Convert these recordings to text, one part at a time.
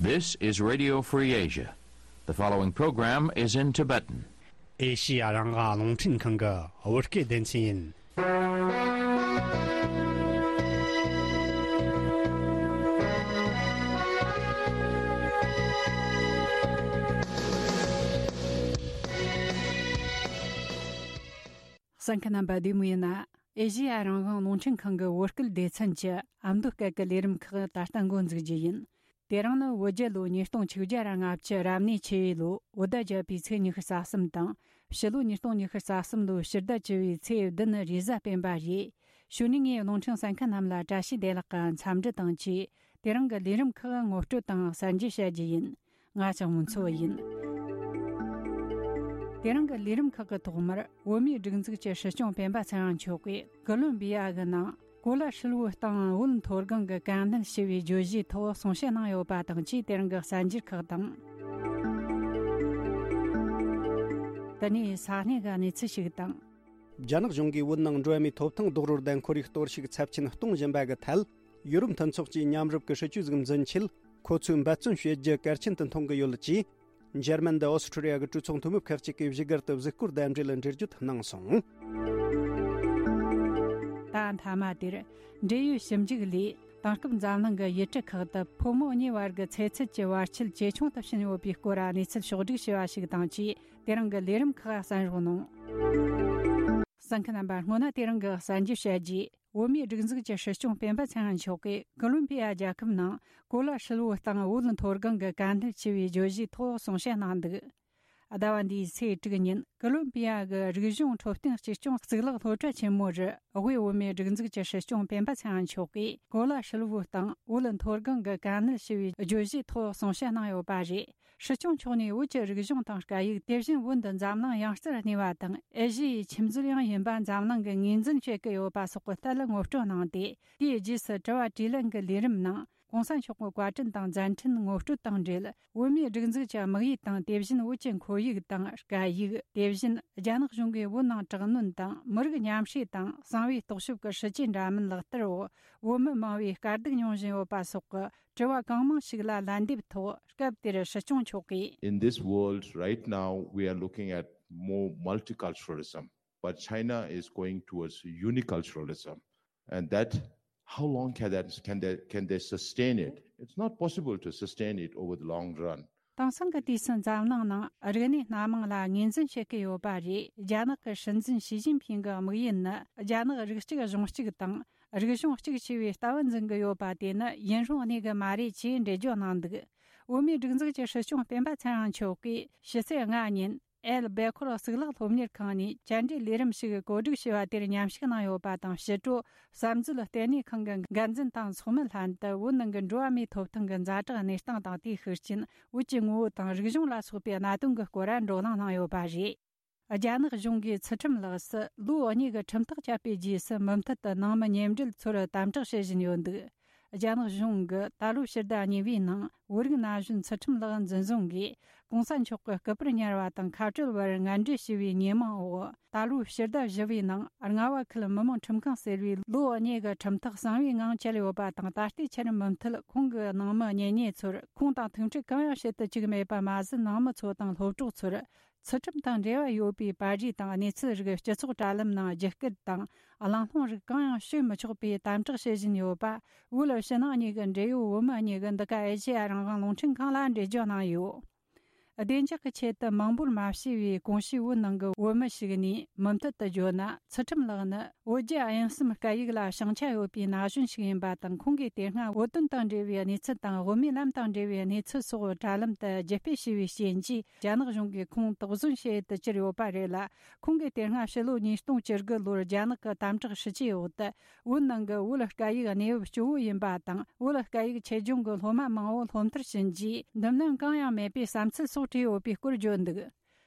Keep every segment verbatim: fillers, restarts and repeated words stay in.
This is Radio Free Asia. The following program is in Tibetan. ཨེ་ཤི་ཡ་རང་དབང་རླུང་འཕྲིན་ཁང་གི་བོད་སྐད་སྡེ་ཚན་ཡིན། གསན་མཁན་རྣམ་པ་བདེ་མོ་ཡིན་ན། ཨེ་ཤི་ཡ་རང་དབང་རླུང་འཕྲིན་ཁང་གི་བོད་སྐད་སྡེ་ཚན་གྱི་ཨ་མདོ་སྐད་ཀྱི་ལས་རིམ་ཁག་ད་ལྟ་འགོ་འཛུགས་རྒྱུ་ཡིན། དེ་རིང་ནི་བོད་རྒྱལ་ལོ་ཉིས་སྟོང་ཆིག་བརྒྱ་ར་ལྔ་བཅུ་རབ་གནས་ཆེ་བའི་ལོ་བོད་ཟླ་བརྒྱད་པའི་ཚེས་ཉི་ཤུ་རྩ་གསུམ་དང་། ཕྱི་ལོ་ཉིས་སྟོང་ཉི་ཤུ་རྩ་གསུམ་ལོའི་ཕྱི་ཟླ་བཅུ་བའི་ཚེས་བདུན་རེས་གཟའ་སྤེན་པ་རེད། གཞུག་ནས་ངས་རླུང་འཕྲིན་གསན་མཁན་རྣམས་ལ་བཀྲ་ཤིས་བདེ་ལེགས་ཀྱི་འཚམས་འདྲི་དང་བཅས། དེ་རིང་གི་ལས་རིམ་ཁག་ངོ་སྤྲོད་དང་གསར་འགྱུར་བཤད་རྒྱུ་ཡིན། ང་ལྕགས་མོ་མཚོ་ཡིན། དེ་རིང་གི་ལས་རིམ་ཁག་གི་ཐོག་མར་བོད་མིའི་སྒྲིག་འཛུགས་ཀྱི་སྲིད་སྐྱོང་སྤེན་པ་ཚེ་རིང་མཆོག་གིས་ཀོ་ལོམ་བི་ཡ་གི་ནང་གོ་ལ་ཧྲིལ་བོའི་སྟེང་བོད་མཐོ་སྒང་གི་དཀའ་གནད་ཞི་བའི་བརྗོད་གཞིའི་ཐོག་གསུང་བཤད་གནང་ཡོད་པ་དང་བཅས། དེ་རིང་གི་གསར་འགྱུར་ཁག་དང་། དེ་ནས་ས་གནས་ཀྱི་གནས་ཚུལ་ཞིག་དང་། རྒྱ་ནག་གཞུང་གིས་བོད་ནང་འགྲོ་བ་མིའི་ཐོབ་ཐང་རྡོག་རོལ་དང་ཁོར་ཡུག་གཏོར་བཤིག་ཚབས་ཆེན་གཏོང་བཞིན་པ་གི་ཐད། ཡུ་རོབ་མཐུན་ཚོགས་ཀྱིས་མཉམ་རུབ་ཀྱི་སྲིད་ཇུས་ཟིག་འཛིན་ཆེད། ཁོ་ཚོས་འབད་བརྩོན་བྱེད་རྒྱུ་གལ་ཆེན་དུ་མཐོང་གི་ཡོད་ཅེས། འཇར་མན་དང་ཨོ་སི་ཁྲུ་ལི་ཡ་གི་གྲོས་ཚོགས་འཐུས་མི་ཁག་ཅིག་གིས་བཞུགས་སྒར་དུ་གཟིགས་སྐོར་དང་འབྲེལ་འགྲེལ་བརྗོད་གནང་སོང་། ད་མཐའ་མ་དེར། འབྲེལ་ཡོད་ཞིབ་འཇུག་ལས། དེང་སྐབས་འཛམ་གླིང་གི་ཡུལ་གྲུ་ཁག་ཏུ་ཕོ་མོ་གཉིས་བར་གྱི་ཚེ་ཚད་ཀྱི་བར་ཆད་ཇེ་ཆུང་དུ་ཕྱིན་ཡོད་པའི་སྐོར་གནས་ཚུལ་ཕྱོགས་བསྒྲིགས་བྱས་པ་ཞིག་དང་བཅས། དེ་རིང་གི་ལས་རིམ་ཁག་གསན་རོགས་གནང་། གསན་མཁན་རྣམ་པ། སྔོན་ན་དེ་རིང་གི་གསར་འགྱུར་བཤད་རྗེས། བོད་མིའི་སྒྲིག་འཛུགས་ཀྱི་སྲིད་སྐྱོང་སྤེན་པ་ཚེ་རིང་མཆོག་གིས་ཀོ་ལོམ་པི་ཡ་རྒྱལ་ཁབ་ནང་གོ་ལ་ཧྲིལ་བོའི་སྟེང་བོད་མཐོ་སྒང་གི་དཀའ་གནད་ཆེ་བའི་བརྗོད་གཞིའི་ཐོག་གསུང་བཤད་གནང་འདུག། ཟླ་བ་འདིའི་ཚེས་དྲུག་ཉིན་ཀོ་ལོམ་པི་ཡ་གི་རིག་གཞུང་འཕྲོད་བསྟེན་གཅེས་སྐྱོང་གཙུག་ལག་སློབ་གྲྭ་ཆེན་མོ་རུ། དབུས་བོད་མིའི་སྒྲིག་འཛུགས་ཀྱི་སྲིད་སྐྱོང་སྤེན་པ་ཚེ་རིང་མཆོག་གིས་གོ་ལ་ཧྲིལ་བོའི་སྟེང་བོད་མཐོ་སྒང་གི་དཀའ་གནད་ཞི་བའི་བརྗོད་གཞིའི་ཐོག་གསུང་བཤད་གནང་ཡོད་པ་རེད། སྲིད་སྐྱོང་མཆོག་ནས་བོད་ཀྱི་རིག་གཞུང་དང་སྐད་ཡིག། དེ་བཞིན་བོད་འདི་འཛམ་གླིང་ཡང་རྩེར་གནས་པ་དང་ཨེ་ཤི་ཡའི་ཁྱིམ་མཚེས་ཡང་ཡིན་པ་འཛམ་གླིང་གིས་ངོས་འཛིན་བྱེད་ཀྱི་ཡོད་པ་སོགས་ཀྱི་ཐད་ལ་ངོ་སྤྲོད་གནང་སྟེ། དེའི་རྗེས་སུ་དྲི་བ་དྲིས་ལན་གྱི་ལས་རིམ་ནང་། གོང་ས་མཆོག་གི་བཀའ་དྲིན་དང་མཛད་འཕྲིན་ངོ་སྤྲོད་དང་འབྲེལ། བོད་མིའི་སྒྲིག་འཛུགས་ཀྱི་དམིགས་ཡུལ་དང་། དེ་བཞིན་བོད་ཀྱི་ཁོར་ཡུག་དང་སྐད་ཡིག། དེ་བཞིན་རྒྱ་ནག་གཞུང་གིས་བོད་ནང་དྲག་གནོན་དང་མི་རིགས་མཉམ་བསྲེས་དང་གསང་བའི་རྟོག་ཞིབ་ཀྱི་སྲིད་ཇུས་འདྲ་མིན་ལག་བསྟར་འོག་བོད་མི་མང་བོས་དཀའ་སྡུག་མྱོང་བཞིན་ཡོད་པ་སོགས་ཀྱི་དྲི་བ་གང་མང་ཞིག་ལ་ལན་འདེབས་ཐོག་སྐབས་དེར་སྲིད་སྐྱོང་མཆོག་གིས། In this world right now, we are looking at more multiculturalism, but China is going towards uniculturalism. And that, how long can that, can they, can they sustain it? It's not possible to sustain it over the long run. དེང་སང་གི་དུས་སུ་འཛམ་གླིང་ནང་རིག་གནས་སྣ་མང་ལ་ངོས་འཛིན་བྱེད་ཀྱི་ཡོད་པ་རེད། རྒྱ་ནག་གི་སྲིད་འཛིན་ཞི་ཅིན་ཕིང་གི་དམིགས་ཡུལ་ནི་རྒྱ་ནག་རིགས་གཅིག་གཞུང་གཅིག་དང་རིག་གཞུང་གཅིག་ཆེ་བའི་ལྟ་བ་འཛིན་གྱི་ཡོད་པ་དེ་ནི་ཡུན་རིང་གནས་ཀྱི་མ་རེད་ཅེས་འགྲེལ་བརྗོད་གནང་འདུག། བོད་མིའི་སྒྲིག་འཛུགས་ཀྱི་སྲིད་སྐྱོང་སྤེན་པ་ཚེ་རིང་མཆོག་གིས་ཕྱི་ཚེས་ལྔ་ཉིན། ཨེལ་སྦེ་ཁོར་གཙུག་ལག་སློབ་གཉེར་ཁང་ནས་བཅར་འདྲི་ལས་རིམ་ཞིག་གོ་སྒྲིག་བྱས་པ་དེར་མཉམ་ཞུགས་གནང་ཡོད་པ་དང་། ཕྱི་དྲོ་བསམ་མཛོད་ལྟེ་གནས་ཁང་གི་འགན་འཛིན་དང་ཚོགས་མི་ལྷན་དུ་བོད་ནང་གི་འགྲོ་བ་མིའི་ཐོབ་ཐང་གི་ཛ་དྲག་གནས་སྟངས་དང་། དེའི་ཤུགས་རྐྱེན། བོད་ཀྱི་ངོ་བོ་དང་རིག་གཞུང་ལ་སོགས་པའི་གནད་དོན་གྱི་སྐོར་བགྲོ་གླེང་གནང་ཡོད་པ་རེད། རྒྱ་ནག་གཞུང་གིས་ཚུལ་ཁྲིམས་ལགས་སུ་ལོ་གཉིས་ཀྱི་ཁྲིམས་ཐག་བཅད་པའི་རྗེས་སུ། མུ་མཐུད་དུ་ནང་མི་གཉེན་འབྲེལ་ཚོར་དམ་དྲག་བྱེད་བཞིན་ཡོད་འདུག། རྒྱ་ནག་གཞུང་གིས་ད་ལོའི་ཕྱི་ཟླ་གཉིས་པའི་ནང་བོད་རིགས་ན་གཞོན་ཚུལ་ཁྲིམས་ལགས་འཛིན་བཟུང་གིས་གོང་ས་མཆོག་གི་སྐུ་པར་ཉར་བ་དང་ཁ་བྲལ་བར་ངན་འབྲེལ་བྱས་པའི་ཉེས་མིང་འོག། ད་ལོའི་ཕྱི་ཟླ་བཞི་པའི་ནང་རྔ་བ་ཁུལ་མི་དམངས་ཁྲིམས་ཁང་ཟེར་བའི་ལོ་གཉིས་ཀྱི་ཁྲིམས་ཐག་གསང་བའི་ངང་བཅད་ཡོད་པ་དང་། ད་ལྟའི་ཆར་མུ་མཐུད་ཁོང་གི་ནང་མི་གཉེན་ཉེ་ཚོར་ཁོང་དང་ཐུག་འཕྲད་གང་ཡང་བྱེད་དུ་བཅུག་མེད་པ་མ་ཟད། ནང་མི་ཚོ་དང་སློབ་གྲོགས་ཚོར། ཚུལ་ཁྲིམས་དང་འབྲེལ་བ་ཡོད་པའི་པར་རིས་དང་གནས་ཚུལ་རིགས་སྤྱི་ཚོགས་དྲ་ལམ་ནང་རྒྱུད་སྐུལ་དང་གླེང་སློང་རིགས་གང་ཡང་བྱེད་མི་ཆོག་པའི་དམ་དྲག་བྱེད་བཞིན་ཡོད་པ། བོད་ཕྱི་ནང་གཉིས་ཀྱི་འབྲེལ་ཡོད་བོད་མི་གཉིས་ཀྱིས་འདི་ག་ཨེ་ཤེ་ཡ་རང་དབང་རླུང་འཕྲིན་ཁང་ལ་འགྲེལ་བརྗོད་གནང་ཡོད། བདེ་འཇགས་ཀྱི་ཆེད་དུ་མང་པོར་མ་བྱས་པའི་གོང་ཞུས་བོད་ནང་གི་བོད་མི་ཞིག་ནས་མུ་མཐུད་དུ་བརྗོད་ན། ཚུལ་ཁྲིམས་ལགས་ནི། བོད་རྒྱ་དབྱིན་གསུམ་སྐད་ཡིག་ལ་ཤེས་བྱ་ཡོད་པའི་ན་གཞོན་ཞིག་ཡིན་པ་དང་། ཁོང་གིས་དེ་སྔ་བོད་དོན་དང་འབྲེལ་བའི་གནས་ཚུལ་དང་། བོད་མིའི་ལམ་དང་འབྲེལ་བའི་གནས་ཚུལ་སོགས་དྲ་ལམ་དུ་བརྒྱུད་སྤེལ་བྱས་པའི་རྐྱེན་གྱིས། རྒྱ་ནག་གཞུང་གིས་ཁོང་དོགས་ཟོན་བྱེད་དུ་གྱུར་ཡོད་པ་རེད་ལ། ཁོང་གིས་དེ་སྔ་ཕྱི་ལོ་ཉིས་སྟོང་བཅུ་དགུ་ལོར་རྒྱ་ནག་གི་དམ་དྲག་སྲིད་ཇུས་འོག་ཏུ། བོད་ནང་གི་བོད་སྐད་ཡིག་གནས་བབ་སྐྱོ་བོ་ཡིན་པ་དང་། བོད་སྐད་ཡིག་ཆེད་སྦྱོང་གི་སློབ་མ་མང་བོ་སློབ་མཐར་ཕྱིན་རྗེས། འདུམ་ལམ་གང་ཡང་མེད་པའི་བསམ་ཚུལ་སོགས་བྲིས་ཡོད་པའི་སྐོར་བརྗོད་འདུག།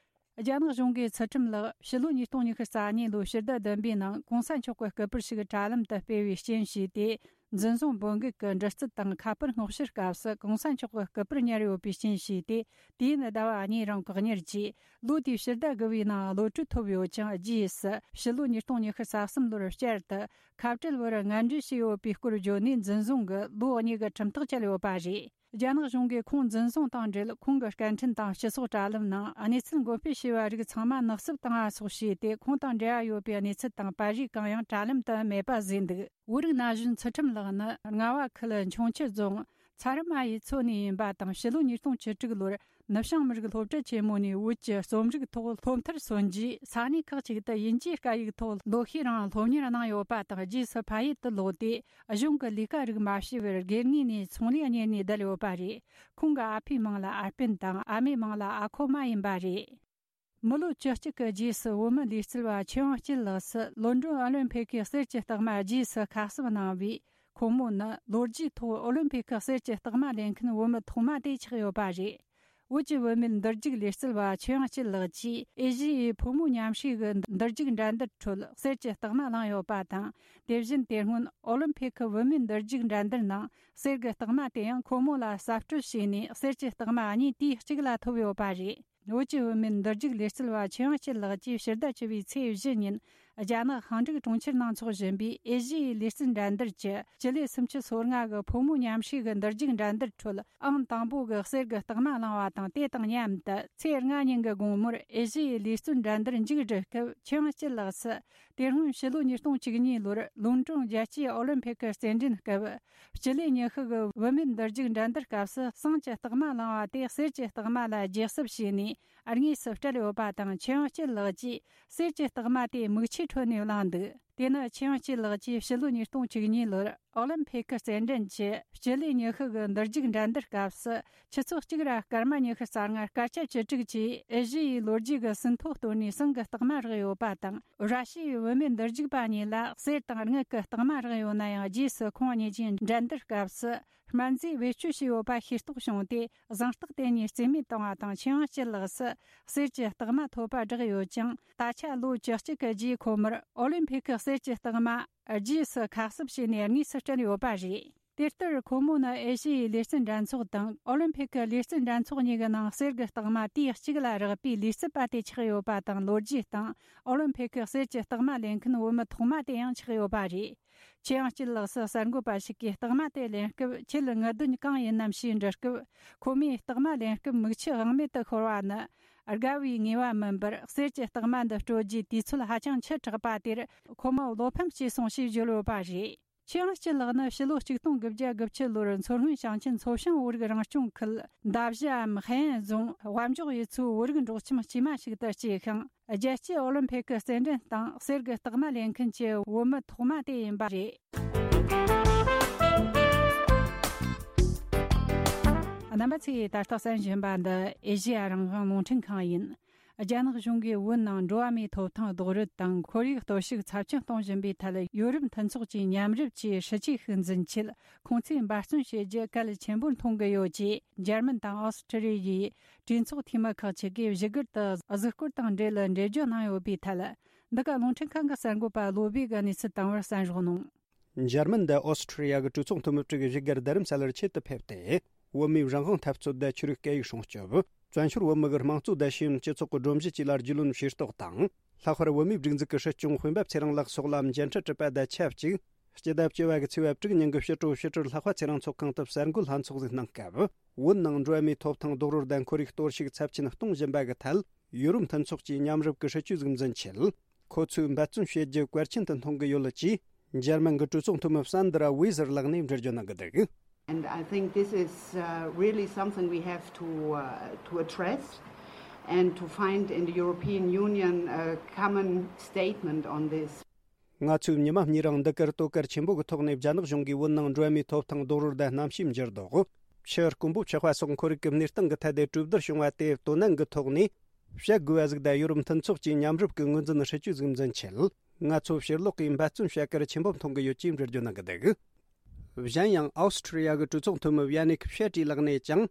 རྒྱ་ནག་གཞུང་གིས་ཚུལ་ཁྲིམས་ལགས་ཕྱི་ལོ་ཉིས་སྟོང་ཉི་ཤུ་རྩ་གཉིས་ལོའི་ཕྱི་ཟླ་བདུན་པའི་ནང་གོང་ས་མཆོག་གི་སྐུ་པར་ཞིག་དྲ་ལམ་དུ་སྤེལ་བའི་རྐྱེན་ཞེས་ཏེ། འཛིན་བཟུང་བོད་འགུག་གི་འདྲི་རྩད་དང་ཁ་པར་སྔོག་བཤེར་སྐབས་སུ་གོང་ས་མཆོག་གི་སྐུ་པར་ཉར་ཡོད་པའི་རྐྱེན་ཞེས་ཏེ། དུས་ཡུན་ཟླ་བ་གཉིས་རིང་བཀག་ཉར་གྱིས། ལོ་དེའི་ཕྱི་ཟླ་དགུ་པའི་ནང་གློད་གྲོལ་ཐོབ་ཡོད་ཅིང་། རྗེས་སུ་ཕྱི་ལོ་ཉིས་སྟོང་ཉི་ཤུ་རྩ་གསུམ་ལོར་བསྐྱར་དུ་ཁ་བྲལ་བར་ངན་འབྲེལ་བྱས་ཡོད་པའི་སྐོར་བརྗོད་ནས། འཛིན་བཟུང་གིས་ལོ་གཉིས་ཀྱི་ཁྲིམས་ཐག་བཅད་ཡོད་པ་རེད། རྒྱ་ནག་གཞུང་གིས་ཁོང་འཛིན་བཟུང་དང་འབྲེལ། ཁོང་གི་སྐད་འཕྲིན་དང་སྤྱི་ཚོགས་དྲ་ལམ་ནང་གནས་ཚུལ་འགོད་སྤེལ་བྱས་པ་རིགས་ཚང་མ་ནག་བསུབ་བཏང་བ་སོགས་བྱས་ཏེ། ཁོང་དང་འབྲེལ་བ་ཡོད་པའི་གནས་ཚུལ་དང་པར་རིས་གང་ཡང་དྲ་ལམ་དུ་མེད་པ་བཟོས་འདུག་བོད་རིགས་ན་གཞོན་ཚུལ་ཁྲིམས་ལགས་ནི་རྔ་བ་ཁུལ་འཕྱོངས་ཁྱི་རྫོང་ཚ་རི་མ་ཡུལ་ཚོ་ནས་ཡིན་པ་དང་། ཕྱི་ལོ་ཉིས་སྟོང་བཅུ་དྲུག་ལོར་ནུབ་བྱང་མི་རིགས་སློབ་གྲྭ་ཆེན་མོ་ནས་བོད་ཀྱི་རྩོམ་རིག་ཐོག་སློབ་མཐར་སོན་རྗེས། ས་གནས་ཁག་ཅིག་ཏུ་དབྱིན་ཇིའི་སྐད་ཡིག་ཐོག་ལོ་ཤས་རིང་སློབ་གཉེར་གནང་ཡོད་པ་དང་། རྗེས་སུ་ཕ་ཡུལ་དུ་ལོག་སྟེ། གཞུང་གི་ལས་ཀ་རིགས་མ་བྱས་པར་སྒེར་ངོས་ནས་ཚོང་ལས་གཉེར་ནས་བསྡད་ཡོད་པ་རེད། ཁོང་གི་ཨ་ཕའི་མིང་ལ་ཨར་པན་དང་། ཨ་མའི་མིང་ལ་ཨ་ཁོ་མ་ཡིན་པ་རེད། མི་ལོ་བཅུ་གཅིག་གི་རྗེས་སུ་བོད་མི་ལུས་རྩལ་བ་ཆོས་དབྱངས་སྐྱིད་ལགས་སུ་ལོན་ཌོན་ཨོ་ལིམ་ཕིག་གི་གསེར་གྱི་རྟགས་མ་རྗེས་སུ་ཁ་གསབ་གནང་བས། ཁོང་མོ་ནི་ལོ་རྒྱུས་ཐོག་ཨོ་ལིམ་ཕིག་གི་གསེར་གྱི་རྟགས་མ་ལེན་མཁན་བོད་མི་ཐོག་མ་དེ་ཆགས་ཡོད་པ་རེད། བོད་ཀྱི་བུད་མེད་འདུར་རྒྱུག་ལུས་རྩལ་བ་ཆོས་དབྱངས་སྐྱིད་ལགས་ཀྱིས་ཨེ་ཤི་ཡའི་ཕོ་མོའི་མཉམ་ཞུགས་ཀྱི་འདུར་རྒྱུག་འགྲན་བསྡུར་ཁྲོད་གསེར་གྱི་རྟགས་མ་བླངས་ཡོད་པ་དང་། དེ་བཞིན་དེ་སྔོན་ཨོ་ལིམ་ཕིག་གི་བུད་མེད་འདུར་རྒྱུག་འགྲན་བསྡུར་ནང་གསེར་གྱི་རྟགས་མ་དེ་ཡང་ཁོ་མོ་ལ་གསབ་སྤྲོད་བྱས་ནས། གསེར་གྱི་རྟགས་མ་གཉིས་དུས་གཅིག་ལ་ཐོབ་ཡོད་པ་རེད། བོད་ཀྱི་བུད་མེད་འདུར་རྒྱུག་ལུས་རྩལ་བ་ཆོས་དབྱངས་སྐྱིད་ལགས་ཀྱིས་ཕྱི་ཟླ་བཅུ་པའི་ཚེས་བཞི་ཉིན་རྒྱ་ནག་ཧང་ཀྲུག་གྲོང་ཁྱེར་ནང་འཚོགས་བཞིན་པའི་ཨེ་ཤི་ཡའི་ལུས་རྩལ་འགྲན་བསྡུར་གྱི་སྤྱི་ལེ་སུམ་ཅུ་སོ་ལྔ་གི་ཕོ་མོའི་མཉམ་ཞུགས་ཀྱི་འདུར་རྒྱུག་འགྲན་བསྡུར་ཁྲོད་ཨང་དང་པོ་གི་གསེར་གྱི་རྟགས་མ་བླངས་བ་དང་། དེ་དང་མཉམ་དུ་ཚེས་ལྔ་ཉིན་གྱི་དགོང་མོར་ཨེ་ཤི་ཡའི་ལུས་རྩལ་འགྲན་བསྡུར་མཇུག་བསྒྲིལ་སྐབས། ཆོས་དབྱངས་སྐྱིད་ལགས་སུ་དེ་སྔོན་ཕྱི་ལོ་ཉིས་སྟོང་བཅུ་གཉིས་ལོར་ལོན་ཀྲོང་རྒྱལ་སྤྱིའི་ཨོ་ལིམ་ཕིག་གི་རྩེད་འགྲན་སྐབས། སྤྱི་ལེ་ཉི་ཤུ་གི་བུད་མེད་འདུར་རྒྱུག་འགྲན་བསྡུར་སྐབས་སུ་ཟངས་ཀྱི་རྟགས་མ་བླངས་པ་དེ་གསེར་གྱི་རྟགས་མ་ལ་བརྗེ་གསབ་བྱས་ནས་དངོས་སུ་སྤྲད་ཡོད་པ་དང་། ཆོས་དབྱངས་སྐྱིད་ལགས་ཀྱིས་གསེར་གྱི་རྟགས་མ་དེ་མིག་ཆུའི་ཁྲོད་ནས་བླངས་འདུག་དེ་ནི་ཆོས་དབྱངས་སྐྱིད་ལགས་ཀྱིས་ཕྱི་ལོ་ཉིས་སྟོང་བཅུ་གཉིས་ལོར་ཨོ་ལིམ་ཕིག་གི་རྩེད་འགྲན་གྱི་སྤྱི་ལེ་ཉི་ཤུ་གི་འདུར་རྒྱུག་འགྲན་བསྡུར་སྐབས་སུ། ཆུ་ཚོད་གཅིག་ར་སྐར་མ་ཉི་ཤུ་རྩ་ལྔ་སྐར་ཆ་བཅུ་དྲུག་གིས་ཨེ་ཤི་ཡའི་ལོ་རྒྱུས་ཀྱི་ཟིན་ཐོ་བཏོན་ནས་ཟངས་ཀྱི་རྟགས་མ་རག་ཡོད་པ་དང་། ར་ཤི་ཡའི་བུད་མེད་འདུར་རྒྱུག་པ་གཉིས་ལ་གསེར་དང་དངུལ་གྱི་རྟགས་མ་རག་ཡོད་ན་ཡང་། རྗེས་སུ་ཁོང་གཉིས་ཀྱིས་འགྲན་བསྡུར་སྐབས་སུ་སྨན་རྫས་བེད་སྤྱོད་བྱས་ཡོད་པ་ཤེས་རྟོགས་བྱུང་སྟེ། ཟངས་རྟགས་དེ་གཉིས་རྩིས་མེད་བཏང་བ་དང་། ཆོས་དབྱངས་སྐྱིད་ལགས་སུ་གསེར་གྱི་རྟགས་མ་ཐོབ་པ་བསྒྲགས་ཡོད་ཀྱང་། ད་ཆ་ལོ་བཅུ་གཅིག་གི་རྗེས་ཁོ་མོར་ཨོ་ལིམ་ཕིག་གི་གསེར་གྱི་རྟགས་མ་རྗེས་སུ་ཁ་གསབ་བྱས་ནས་དངོས་སུ་སྤྲད་ཡོད་པ་རེད། དེ་ལྟར་ཁོ་མོ་ནི་ཨེ་ཤི་ཡའི་ལུས་རྩལ་འགྲན་ཚོགས་དང་ཨོ་ལིམ་ཕིག་གི་ལུས་རྩལ་འགྲན་ཚོགས་གཉིས་ཀྱི་ནང་གསེར་གྱི་རྟགས་མ་དུས་གཅིག་ལ་རག་པའི་ལུས་རྩལ་པ་དེ་ཆགས་ཡོད་པ་དང་། ལོ་རྒྱུས་སྟེང་ཨོ་ལིམ་ཕིག་གི་གསེར་གྱི་རྟགས་མ་ལེན་མཁན་བུད་མེད་ཐོག་མ་དེ་ཡང་ཆགས་ཡོད་པ་རེད། ཆོས་དབྱངས་སྐྱིད་ལགས་སུ་གསར་འགོད་པ་ཞིག་གིས་རྟགས་མ་དེ་ལེན་སྐབས། ཁྱེད་དངུལ་འདོན་གང་ཡིན་ནམ་ཞེས་འདྲི་སྐབས། ཁོ་མོས་རྟགས་མ་ལེན་སྐབས་མིག་ཆུ་དབང་མེད་དུ་ཤོར་བ་ནི་དགའ་བའི་ངེས་པ་མིན་པར། གསེར་གྱི་རྟགས་མ་འདི་སྤྲོད་རྒྱུའི་དུས་ཚོད་ཧ་ཅང་ཆེ་དྲགས་པ་དེར་ཁོ་མོ་བློ་ཕམ་སྐྱེས་སོང་ཞེས་བརྗོད་ཡོད་པ་རེད། ཆོས་དབྱངས་སྐྱིད་ལགས་ནི་ཕྱི་ལོ་ཆིག་སྟོང་དགུ་བརྒྱ་དགུ་བཅུ་ལོར་མཚོ་སྔོན་ཞིང་ཆེན་མཚོ་བྱང་བོད་རིགས་རང་སྐྱོང་ཁུལ་མདའ་བཞི་འམ་ཧེ་ཨན་རྫོང་དབའ་འབྱོག་ཡུལ་ཚོའི་བོད་རིགས་འབྲོག་ཁྱིམ་དཀྱུས་མ་ཞིག་ཏུ་སྐྱེས་ཤིང་། རྒྱལ་སྤྱིའི་ཨོ་ལིམ་ཕིག་གི་རྩེད་འགྲན་སྟེང་གསེར་གྱི་རྟགས་མ་ལེན་མཁན་གྱི་བུད་མེད་ཐོག་མ་དེ་ཡིན་པ་རེད། རྣམ་པ་ཚོས་ད་ལྟ་གསན་བཞིན་པ་འདི་ཨེ་ཤེ་ཡ་རང་དབང་རླུང་འཕྲིན་ཁང་ཡིན། རྒྱ་ནག་གཞུང་གིས་བོད་ནང་འགྲོ་བ་མིའི་ཐོབ་ཐང་རྡོག་རོལ་དང་ཁོར་ཡུག་གཏོར་བཤིག་ཚབས་ཆེན་གཏོང་བཞིན་པའི་ཐད། ཡོ་རོབ་མཐུན་ཚོགས་ཀྱི་མཉམ་རུབ་ཀྱིས་སྲིད་ཇུས་ཤིག་འཛིན་ཆེད་ཁོང་ཚོས་འབད་བརྩོན་བྱེད་རྒྱུ་གལ་ཆེན་པོར་མཐོང་གི་ཡོད་ཅེས། འཇར་མན་དང་ཨོ་སི་ཁྲི་ལི་ཡའི་གྲོས་ཚོགས་འཐུས་མི་ཁག་ཅིག་གིས་བཞུགས་སྒར་དུ་གཟིགས་སྐོར་དང་འབྲེལ་འགྲེལ་བརྗོད་གནང་ཡོད་པའི་ཐད། འདི་ག་རླུང་འཕྲིན་ཁང་གི་གསར་འགོད་པ་བློ་བྷེ་གིས་གནས་ཚུལ་བཏང་བར་གསན་རོགས་གནང་། འཇར་མན་དང་ཨོ་སི་ཁྲི་ལི་ཡ་གི་གྲོས་ཚོགས་འཐུས་མི་དྲུག་བཞུགས་སྒར་རྡ་རམ་ས་ལར་ཆེད་དུ་ཕེབས་ཏེ། བོད་མིའི་རང་དབང་འཐབ་རྩོད་དང་ཆོས་རིག་སྐད་ཡིག་སྲུང་སྐྱོབ། བཙན་བྱོལ་བོད་མི་གི་དམངས་གཙོ་དང་ཤེས་ཡོན་སྤྱི་ཚོགས་ཀྱི་སྒྲོམ་གཞི་བཅས་ལ་རྒྱུས་ལོན་ཤེས་རྟོགས་དང་། ལྷག་པར་བོད་མིའི་སྒྲིག་འཛུགས་ཀྱི་སྲིད་སྐྱོང་དཔོན་པོ་ཚེ་རིང་ལགས་སོགས་ལ་མཇལ་འཕྲད་གྲུབ་པ་དང་ཆབས་ཅིག་སྤྱི་ཟླ་བཅུ་བ་གི་ཚེས་པ་དྲུག་ཉིན་གྱི་ཕྱི་དྲོ་ཕྱི་དྲིལ་ལྷག་པ་ཚེ་རིང་ཚོགས་ཁང་དུ་གསར་འགོད་ལྷན་ཚོགས་ཟིག་གནང་སྐབས། བོད་ནང་འགྲོ་བ་མིའི་ཐོབ་ཐང་རྡོག་རོལ་དང་ཁོར་ཡུག་གཏོར་བཤིག་ཚབས་ཆེན་གཏོང་བཞིན་པ་གི་ཐད། ཡོ་རོབ་མཐུན་ཚོགས་ཀྱི་མཉམ་རུབ་ཀྱི་སྲིད་ཇུས་ཟིག་འཛིན་ཆེད། ཁོ་ཚོས་འབད་བརྩོན་བྱེད་རྒྱུ་གལ་ཆེན་དུ་མཐོང་གི་ཡོད་ཅེས། འཇར་མན་གྱི་གྲོས་ཚོགས་འཐུས་མི་སན་དྲ་ཝེ་ཟེར་ལགས་ནས་འགྲེལ་བརྗོད་གནང་གི་འདུག And I think this is uh, really something we have to, uh, to address and to find in the European Union a common statement on this. ང་ཚོས་ཉི་མ་གཉིས་རིང་འདི་གར་དོ་གལ་ཆེན་པོ་གི་ཐོག་ནས་རྒྱ་ནག་གཞུང་གིས་བོད་ནང་འགྲོ་བ་མིའི་ཐོབ་ཐང་རྡོག་རོལ་དང་གནམ་གཤིས་འགྱུར་ལྡོག་ཕྱི་དཀོན་པོ་ཕྱི་དཔའ་སོགས་ཁོར་ཡུག་གི་གནས་སྟངས་ཀྱི་ཐད་དེ་གྲོས་བསྡུར་བྱུང་བ་དེ་དོ་ནན་གྱི་ཐོག་ནས་བཤད་དགོས་པ་ཟིག་དང་། ཡོ་རོབ་མཐུན་ཚོགས་ཀྱི་མཉམ་རུབ་ཀྱི་ངོས་འཛིན་སྲིད་ཇུས་ཟིག་འཛིན་ཆེད། ང་ཚོ་ཕྱིར་ལོག་གིས་འབད་བརྩོན་བྱ་གལ་ཆེན་པོ་མཐོང་གི་ཡོད་ཅེས་འགྲེལ་བརྗོད་གནང་གི་འདུག་གཞན་ཡང་། ཨའོ་སི་ཁྲི་ལི་ཡ་གི་གྲོས་ཚོགས་འཐུས་མི་ཝི་ཡ་ནིག་ཕྱེ་ཀྲི་ལགས་ནས་ཀྱང་།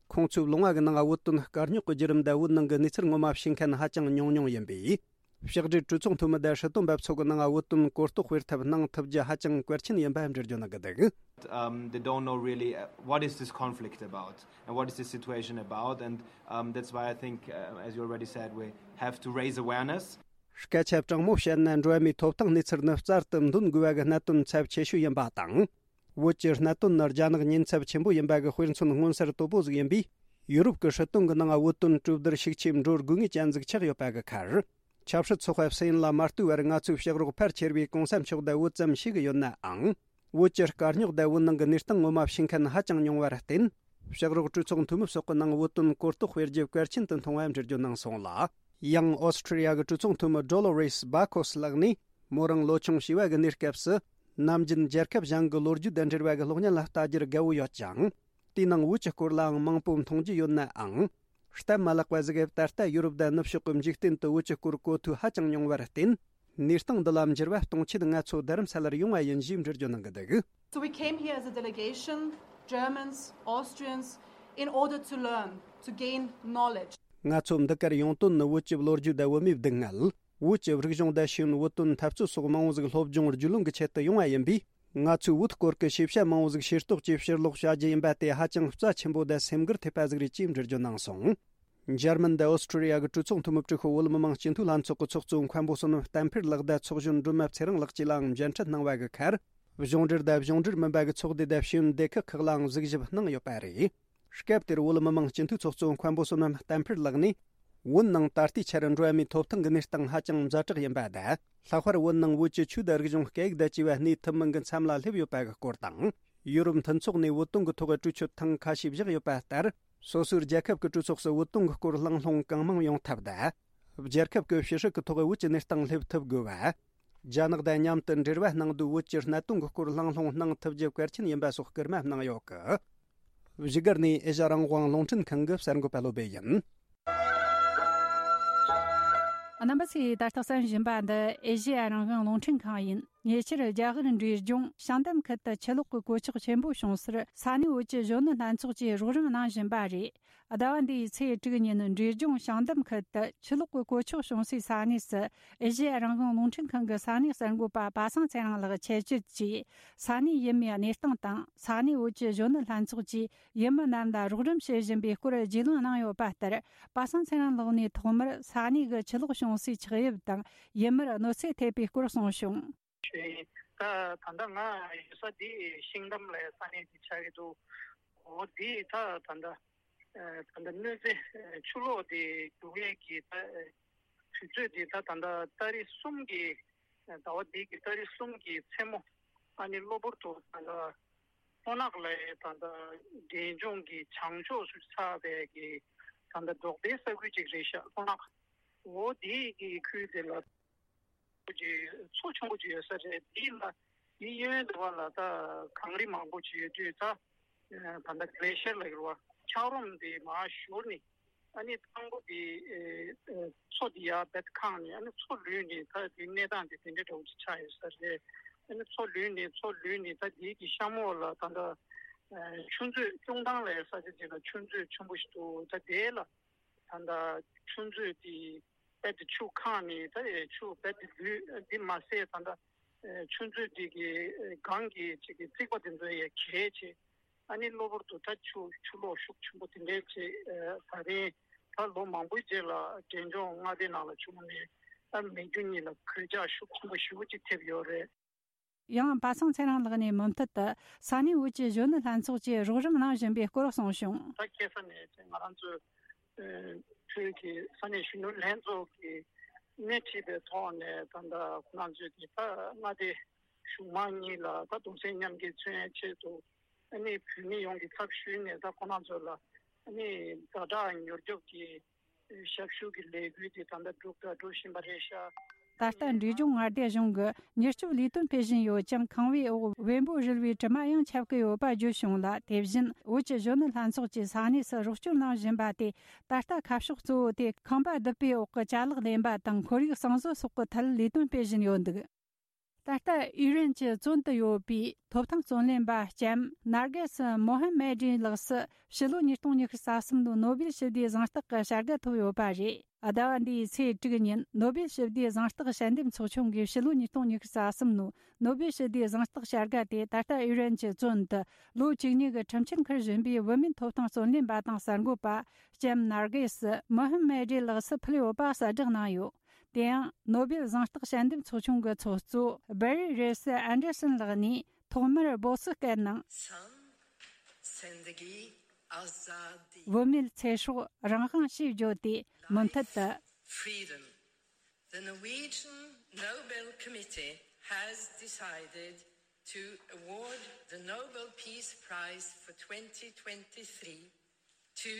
ཁོང་ཚོའི་ལུང་བ་གི་ནང་བོད་དོན་དཀའ་རྙོག་གི་བརྒྱུད་རིམ་དང་། བོད་ནང་གི་གནས་ཚུལ་ངོ་མ་ཤེས་མཁན་ཧ་ཅང་ཉུང་ཉུང་ཡིན་པས། ཕྱག་སྦྲེལ་གྲོས་ཚོགས་འཐུས་མི་དང་སྲིད་དོན་པ་ཚོ་གི་ནང་བོད་དོན་གོ་རྟོགས་སྤེལ་ཐབས་གནང་ཐུབ་རྒྱུ་ཧ་ཅང་གལ་ཆེན་ཡིན་པ་འགྲེལ་བརྗོད་གནང་གི་འདུག Um, they don't know really uh, what is this conflict about and what is this situation about, and um, that's why I think, uh, as you already said, we have to raise awareness. སྐད་ཆ་དྲང་མོ་བཤད་ན། འགྲོ་བ་མིའི་ཐོབ་ཐང་གནས་ཚུལ་ནི་རྩལ་དུ་འདོན་དགོས་པ་གི་གནད་དོན་ཚབས་ཆེ་ཤོས་ཡིན་པ་དང་། བོད་ཀྱི་གནད་དོན་ནི་རྒྱ་ནག་ཉེན་ཚབས་ཆེན་པོ་ཡིན་པ་གི་དཔེ་མཚོན་མངོན་གསལ་དོད་པོ་ཟིག་ཡིན་པས། ཡུ་རོབ་ཀྱི་སྲིད་དོན་གྱི་ནང་བོད་དོན་གྲོས་བསྡུར་ཤུགས་ཆེ་འགྲོ་དགོས་ངེས་ཅན་ཟིག་ཆགས་ཡོད་པ་གི་ཁར། ཆབ་སྲིད་ཚོགས་པ་སི་ཨེན་ལ་མ་ལྟོས་པར་ང་ཚོའི་ཕྱག་རོགས་ཕལ་ཆེར་བའི་གོང་ས་མཆོག་དང་བོད་ཙམ་ཞིག་ཡོད་ནའང་། བོད་ཀྱི་དཀའ་རྙོག་དང་བོད་ནང་གི་གནས་སྟངས་ངོ་མ་ཤེས་མཁན་ཧ་ཅང་ཉུང་བར་བརྟེན། ཕྱག་རོགས་གྲོས་ཚོགས་འཐུས་མི་སོགས་ཀྱི་ནང་བོད་དོན་གོ་རྟོགས་སྤེལ་རྒྱུ་གལ་ཆེན་དུ་མཐོང་བའམ་འགྲེལ་བརྗོད་གནང་སོང་ལ། ཡང་ཨོ་སི་ཁྲི་ལི་ཡ་གི་གྲོས་ཚོགས་འཐུས་མི་ཌོ་ལོ་རེས་བྷ་ཁོས་ལགས་ནས། མོ་རང་ལོ་ཆུང་བྱིས་པ་གི་གནས་སྐབས་སུ། ནམ་རྒྱུན་རྒྱལ་ཁབ་གཞན་གྱི་ལོ་རྒྱུས་དང་འབྲེལ་བ་གི་གློག་བརྙན་ལ་ལྟ་རྒྱུར་དགའ་བོ་ཡོད་ཀྱང་། དེའི་ནང་བོད་ཀྱི་སྐོར་ལའང་མང་པོ་མཐོང་རྒྱུ་ཡོད་ནའང་། སྟབས་མ་ལེགས་པ་ཟིག་གིས་ད་ལྟ་ཡུ་རོབ་དང་ནུབ་ཕྱོགས་ཀྱི་འཇིག་རྟེན་དུ་བོད་ཀྱི་སྐོར་གོ་ཐོས་ཧ་ཅང་ཉུང་བར་བརྟེན། གནས་སྟངས་འདི་ལ་འགྱུར་བ་གཏོང་ཆེད་ང་ཚོ་རྡ་རམ་ས་ལར་ཡོང་བ་ཡིན་ཞེས་འགྲེལ་བརྗོད་གནང་གི་འདུག། So we came here as a delegation, Germans, Austrians, in order to learn, to gain knowledge. ང་ཚོ་འདི་གར་ཡོང་དོན་ནི་བོད་ཀྱི་ལོ་རྒྱུས་དང་བོད་མིའི་སྡུག་བསྔལ། བོད་ཀྱི་རིག་གཞུང་དང་ཤེས་ཡོན། བོད་དོན་འཐབ་རྩོད་སོགས་མང་བོ་ཟིག་སློབ་སྦྱོང་རྒྱུས་ལོན་གྱི་ཆེད་དུ་ཡོང་བ་ཡིན་པས། ང་ཚོས་བོད་སྐོར་གྱི་ཤེས་བྱ་མང་བོ་ཟིག་ཤེས་རྟོགས་ཀྱིས་ཕྱིར་ལོག་བྱ་རྒྱུ་ཡིན་པ་དེ་ཧ་ཅང་རྩ་ཆེན་པོ་དང་སེམས་འགུལ་ཐེབས་པ་ཟིག་རེད་ཅེས་འགྲེལ་བརྗོད་གནང་སོང་། འཇར་མན་དང་ཨོ་སི་ཁྲི་ལི་ཡ་གི་གྲོས་ཚོགས་འཐུས་མི་དྲུག་པོ་བོད་མི་མང་སྤྱི་འཐུས་ལྷན་ཚོགས་ཀྱི་ཚོགས་གཙོ་མཁན་པོ་བསོད་ནམས་བསྟན་འཕེལ་ལགས་དང་ཚོགས་གཞོན་སྒྲོལ་མ་ཚེ་རིང་ལགས་བཅས་ལའང་མཇལ་འཕྲད་གནང་བ་གི་ཁར། གཞུང་འབྲེལ་དང་གཞུང་འབྲེལ་མིན་པ་གི་ཚོགས་སྡེ་དང་ཤེས་ཡོན་སྡེ་ཁག་ཁག་ལའང་གཟིགས་ཞིབ་གནང་ཡོད་པ་རེད། སྐབས་དེར་བོད་མི་མང་སྤྱི་འཐུས་ཚོགས་གཙོ་མཁན་པོ་བསོད་ནམས་བསྟན་འཕེལ་ལགས་ནས། བོད་ནང་ད་ལྟའི་ཆར་འགྲོ་བ་མིའི་ཐོབ་ཐང་གི་གནས་སྟངས་ཧ་ཅང་ཛ་དྲག་ཡིན་པ་དང་། ལྷག་པར་བོད་ནང་བོད་ཀྱི་ཆོས་དང་རིག་གཞུང་སྐད་ཡིག་དང་བཅས་པ་གནས་ཐུབ་མིན་གྱི་མཚམས་ལ་སླེབས་ཡོད་པ་གི་སྐོར་དང་། ཡུ་རོབ་མཐུན་ཚོགས་ནས་བོད་དོན་གྱི་ཐོག་གྲོས་ཆོད་ཐེངས་ཁ་ཤས་བཞག་ཡོད་པ་ལྟར། སོ་སོའི་རྒྱལ་ཁབ་ཀྱི་གྲོས་ཚོགས་སུ་བོད་དོན་གྱི་སྐོར་གླེང་སློང་གང་མང་ཡོང་ཐབས་དང་། རྒྱལ་ཁབ་ཀྱི་ཕྱི་སྲིད་ཀྱི་ཐོག་བོད་ཀྱི་གནས་སྟངས་སླེབས་ཐུབ་དགོས་པ། རྒྱ་ནག་དང་མཉམ་དུ་འབྲེལ་བ་གནང་དུས་བོད་ཀྱི་གནད་དོན་གྱི་སྐོར་གླེང་སློང་གནང་ཐུབ་རྒྱུ་གལ་ཆེན་ཡིན་པ་སོགས་སྐུལ་མ་གནང་ཡོད་གི། བཞུགས་སྒར་ནས་ཨེ་ཤ་རང་དབང་རླུང་འཕྲིན་ཁང་གི་གསར་འགོད་པ་བློ་སྦེ་ཡིན། རྣམ་པ་ཚོས་ད་ལྟ་གསན་བཞིན་པ་འདི་ཨེ་ཤེ་ཡ་རང་དབང་རླུང་འཕྲིན་ཁང་ཡིན། ཉེ་ཆར་རྒྱ་གར་འབྲས་ལྗོངས་ཤང་དམ་ཁུལ་དུ་ཆུ་ལོག་གི་གོད་ཆག་ཆེན་པོ་བྱུང་སར་ས་གནས་བོད་ཀྱི་གཞོན་ནུ་ལྷན་ཚོགས་ཀྱིས་རོགས་རམ་གནང་བཞིན་པ་རེད། ཟླ་བ་འདིའི་ཚེས་དྲུག་ཉིན་འབྲས་ལྗོངས་ཤང་དམ་ཁུལ་དུ་ཆུ་ལོག་གི་གོད་ཆག་བྱུང་སའི་ས་གནས་སུ་ཨེ་ཤེ་ཡ་རང་དབང་རླུང་འཕྲིན་ཁང་གི་ས་གནས་གསར་འགོད་པ་པ་སངས་ཚེ་རིང་ལགས་ཆེད་བཅར་གྱིས་ས་གནས་ཡུལ་མིའི་གནས་སྟངས་དང་ས་གནས་བོད་ཀྱི་གཞོན་ནུ་ལྷན་ཚོགས་ཀྱིས་ཡུལ་མི་རྣམས་ལ་རོགས་རམ་བྱེད་བཞིན་པའི་སྐོར་རྒྱུས་ལོན་གནང་ཡོད་པ་ལྟར། པ་སངས་ཚེ་རིང་ལགས་ནས་ཐོག་མར་ས་གནས་ཀྱི་ཆུ་ལོག་བྱུང་སའི་ཆགས་དབྱིབས་དང་ཡུལ་མིར་གནོད་འཚེ་ཐེབས་པའི་སྐོར་གསུངས་བྱུང་། ད་ད་ལྟ་ང་ཡོད་ས་འདི་ཤིང་དམ་ལ་ས་གནས་འདི་ཆགས་ཀྱི་འདུག་འོ་འདི་ད་ད་ལྟ་ད་ལྟ་གནོད་འཚེ་ཆུ་ལོག་འདི་རྒྱུག་ཡས་ཀྱི་ད་དུས་ཚོད་འདི་ད་ད་ལྟ་ཏ་རིག་གསུམ་གྱི་ཟླ་བ་འདི་གི་ཏ་རིག་གསུམ་གྱི་མཚན་མོ། ཨ་ནི་གློ་བུར་དུ་ད་ལྟ་སྤོ་ནག་ལ་ད་ལྟ་འབྲས་ལྗོངས་ཀྱི་བྱང་ཕྱོགས་སུ་ཆགས་པའི་གི་ད་ལྟ་འབྲོག་པའི་ས་ཁུལ་ཅིག་རེད་ཤག་སྤོ་ནག་འོ་འདི་གི་ཁུལ་དེ་ལ་ཅིག་མཚོ་ཆུང་པོ་ཅིག་ཡོད་ས་རེད། འདི་ལ་འདི་གཡོན་དེ་བ་ལ་ད་གངས་རི་མང་པོ་ཅིག་ཡོད་དུས་ད། ད་ལྟ་གླེ་ཤར་ལ་ཡོད་པ་འཁྱགས་རོམ་དེ་མར་ཤོར་ནས་ཨ་ནི་དང་པོ་དེ་མཚོ་དེ་ཡར་རྦད་ཁེངས་ནས་ཨ་ནི་མཚོ་ལུད་ནས་ད་དེ་གནས་སྟངས་དེ་དེ་འདྲ་འདྲ་བོ་ཅིག་ཆགས་ཡོད་ས་རེད། ཨ་ནི་མཚོ་ལུད་ནས་མཚོ་ལུད་ནས་ད་དེ་གི་གཤམ་འོག་ལ་ད་ལྟ་ཆུ་མཛོད་སྐྱོང་ཐང་ལ་ཡོད་ས་ཆ་ཅིག་ལ་ཆུ་མཛོད་ཆེན་པོ་ཞིག་འདུག་ད་དེ་ལ་ད་ལྟ་ཆུ་མཛོད་དེ་རྦད་དེ་ཆུ་ཁེངས་ནས་ད་ཆུ་རྦད་དེ་ལུད་འདི་མ་ཟད་ད་ལྟ་ཆུ་མཛོད་དེ་གི་སྒང་གི་ཅིག་གི་རྩིག་པ་དེ་ཚོ་ཡང་གས་བྱས། ཨ་ནི་གློ་བུར་དུ་ད་ཆུ་ཆུ་ལོག་ཤུགས་ཆེན་པོ་དེ་འདྲས་བྱས། ད་རིང་ད་ལོ་མང་པོའི་རྗེས་ལ་འབྲས་ལྗོངས་མངའ་སྡེ་ནང་ལ་བྱུང་ནས་ད་མི་རྒྱུ་གཉིས་ལ་གོད་ཆག་ཤུགས་ཆེན་པོ་ཞེ་པོ་ཅིག་ཐེབས་ཡོད་རེད། ཡང་པ་སངས་ཚེ་རིང་ལགས་ནས་མུ་མཐུད་དུ་ས་གནས་བོད་ཀྱི་གཞོན་ནུ་ལྷན་ཚོགས་ཀྱིས་རོགས་རམ་གནང་བཞིན་པའི་སྐོར་གསུངས་བྱུང་། ད་ཁ་སང་ནས་ང་རང་ཚོའི་བོད་ཀྱི་ས་གནས་གཞོན་ནུ་ལྷན་ཚོགས་ཀྱིས་སྣེ་ཁྲིད་པའི་ཐོག་ནས་ད་ལྟ་ཁོ་རང་ཚོས་ཀྱི་ད་མངའ་སྡེ་གཞུང་མང་གཉིས་ལ་ད་གདུང་སེམས་མཉམ་སྐྱེད་མཚོན་ཡའི་ཆེད་དུ་ཨ་ནི་བོད་མི་ཡོངས་ཀྱི་ཚབ་ཞུས་ནས་ད་ཁོ་རང་ཚོ་ལ་ཨ་ནི་ཛ་དྲག་མྱུར་སྐྱོབ་ཀྱི་ཞབས་ཞུ་གི་ལས་འགུལ་དེ་ད་ལྟ་སྒྲུབ་དང་སྒྲུབ་བཞིན་པ་རེད་ཤག་ད་ལྟ་འབྲས་ལྗོངས་མངའ་སྡེ་གཞུང་གི་མྱུར་སྐྱོབ་ལས་དོན་སྤེལ་བཞིན་ཡོད་ཅིང་། ཁང་པའི་འོག་བེམ་པོ་རིལ་བའི་དྲི་མ་ཡང་ཁྱབ་ཀྱི་ཡོད་པ་བརྗོད་བྱུང་ལ། དེ་བཞིན་བོད་ཀྱི་གཞོན་ནུ་ལྷན་ཚོགས་ཀྱིས་ས་གནས་སུ་རོགས་སྐྱོར་གནང་བཞིན་པ་དེ། ད་ལྟ་ཁ་ཕྱོགས་གཙོ་བོ་དེ་ཁང་པ་བརྡིབས་པའི་འོག་གི་ཅ་ལག་ལེན་པ་དང་ཁོར་ཡུག་གསང་བཟོ་སོགས་ཀྱི་ཐད་ལས་དོན་སྤེལ་བཞིན་ཡོད་འདུག་ད་ལྟ་ཨི་རན་གྱི་བཙོན་དུ་ཡོད་པའི་ཐོབ་ཐང་རྩོད་ལེན་པ་ལྕམ་ནར་གེ་སི་མོ་ཧམ་མེ་ཏྲི་ལགས་སུ་ཕྱི་ལོ་ཉིས་སྟོང་ཉི་ཤུ་རྩ་གསུམ་ལོའི་ནོ་སྦེལ་ཞི་བདེའི་གཟེངས་རྟགས་ཀྱི་བྱ་དགའ་ཐོབ་ཡོད་པ་རེད། ཟླ་བ་འདིའི་ཚེས་དྲུག་ཉིན་ནོ་སྦེལ་ཞི་བདེའི་གཟེངས་རྟགས་དཔྱད་འདེམས་ཚོགས་ཆུང་གིས་ཕྱི་ལོ་ཉིས་སྟོང་ཉི་ཤུ་རྩ་གསུམ་ལོའི་ནོ་སྦེལ་ཞི་བདེའི་གཟེངས་རྟགས་བྱ་དགའ་དེ་ད་ལྟ་ཨི་རན་གྱི་བཙོན་དུ་ལོ་བཅུ་གཉིས་ཀྱི་ཁྲིམས་ཆད་འཁུར་བཞིན་པའི་བུད་མེད་ཐོབ་ཐང་རྩོད་ལེན་པ་དང་གསར་འགོད་པ་ལྕམ་ནར་གེ་སི་མོ་ཧམ་མེ་ཏྲི་ལགས་སུ་ཕུལ་ཡོད་པ་གསལ་བསྒྲགས་གནང་ཡོད། དེ་ཡང་ནོ་སྦེལ་གཟེངས་རྟགས་དཔྱད་འདེམས་ཚོགས་ཆུང་གི་ཚོགས་གཙོ་སྦེ་རི་རེ་སི་ཨན་ཌར་སན་ལགས་ནས། ཐོག་མར་སྦོ་སི་སྐད་ནང་། San zendegi azadi. བུད་མེད་ཚེ་སྲོག་རང་དབང་ཞེས་བརྗོད་དེ་མུ་མཐུད་དུ། Freedom. The Norwegian Nobel Committee has decided to award the Nobel Peace Prize for twenty twenty-three to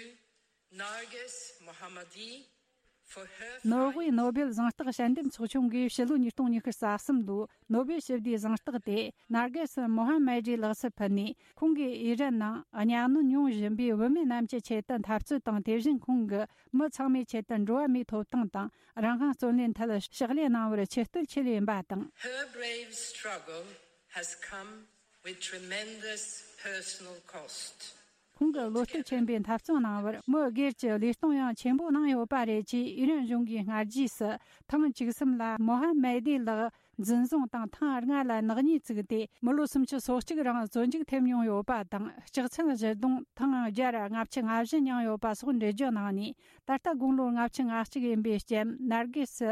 Narges Mohammadi for her fight. ནོར་ཝེ་ནོ་བེལ་གཟེངས་རྟགས་དཔྱད་འདེམས་ཚོགས་ཆུང་གིས་ཕྱི་ལོ་ཉིས་སྟོང་ཉི་ཤུ་རྩ་གསུམ་ལོའི་ནོ་བེལ་ཞི་བདེའི་གཟེངས་རྟགས་དེ་ནར་གེ་སི་མོ་ཧམ་མེ་ཏྲི་ལགས་སུ་ཕུལ་ནས། ཁོང་གིས་ཨི་རན་ནང་གཉའ་གནོན་མྱོང་བཞིན་པའི་བུད་མེད་རྣམས་ཀྱི་ཆེད་དུ་འཐབ་རྩོད་དང་། དེ་བཞིན་ཁོང་གིས་མི་ཚང་མའི་ཆེད་དུ་འགྲོ་བ་མིའི་ཐོབ་ཐང་དང་རང་དབང་རྩོད་ལེན་ཐད་ཕྱག་ལས་གནང་བར་ཆེ་བསྟོད་ཆེད་ཡིན་པ་དང་། Her brave struggle has come with tremendous personal cost. ཁོང་གི་བློ་གཏད་ཆེན་པོས་འཐབ་རྩོད་གནང་བར་མི་སྒེར་གྱི་ལུས་གཏོང་ཡང་ཆེན་པོ་གནང་ཡོད་པ་རེད་ཅེས་ཨི་རན་གཞུང་གིས་སྔ་རྗེས་སུ་ཐེངས་བཅུ་གསུམ་ལ་མོ་ཧམ་མེ་ཏི་ལགས་འཛིན་བཟུང་དང་། ཐེངས་ལྔ་ལ་ནག་ཉེས་བཙུགས་ཏེ། མི་ལོ་སུམ་ཅུ་སོ་གཅིག་རིང་བཙོན་འཇུག་ཐེབས་མྱོང་ཡོད་པ་དང་། ལྕགས་ཚན་བཞི་བརྡུངས། ཐེངས་བརྒྱ་ར་ལྔ་བཅུ་ང་བཞི་མྱངས་ཡོད་པ་སོགས་འགྲེལ་བརྗོད་གནང་ནས། ད་ལྟ་དགུང་ལོ་ལྔ་བཅུ་ང་གཅིག་ཡིན་པའི་ལྕམ་ནར་གེ་སི་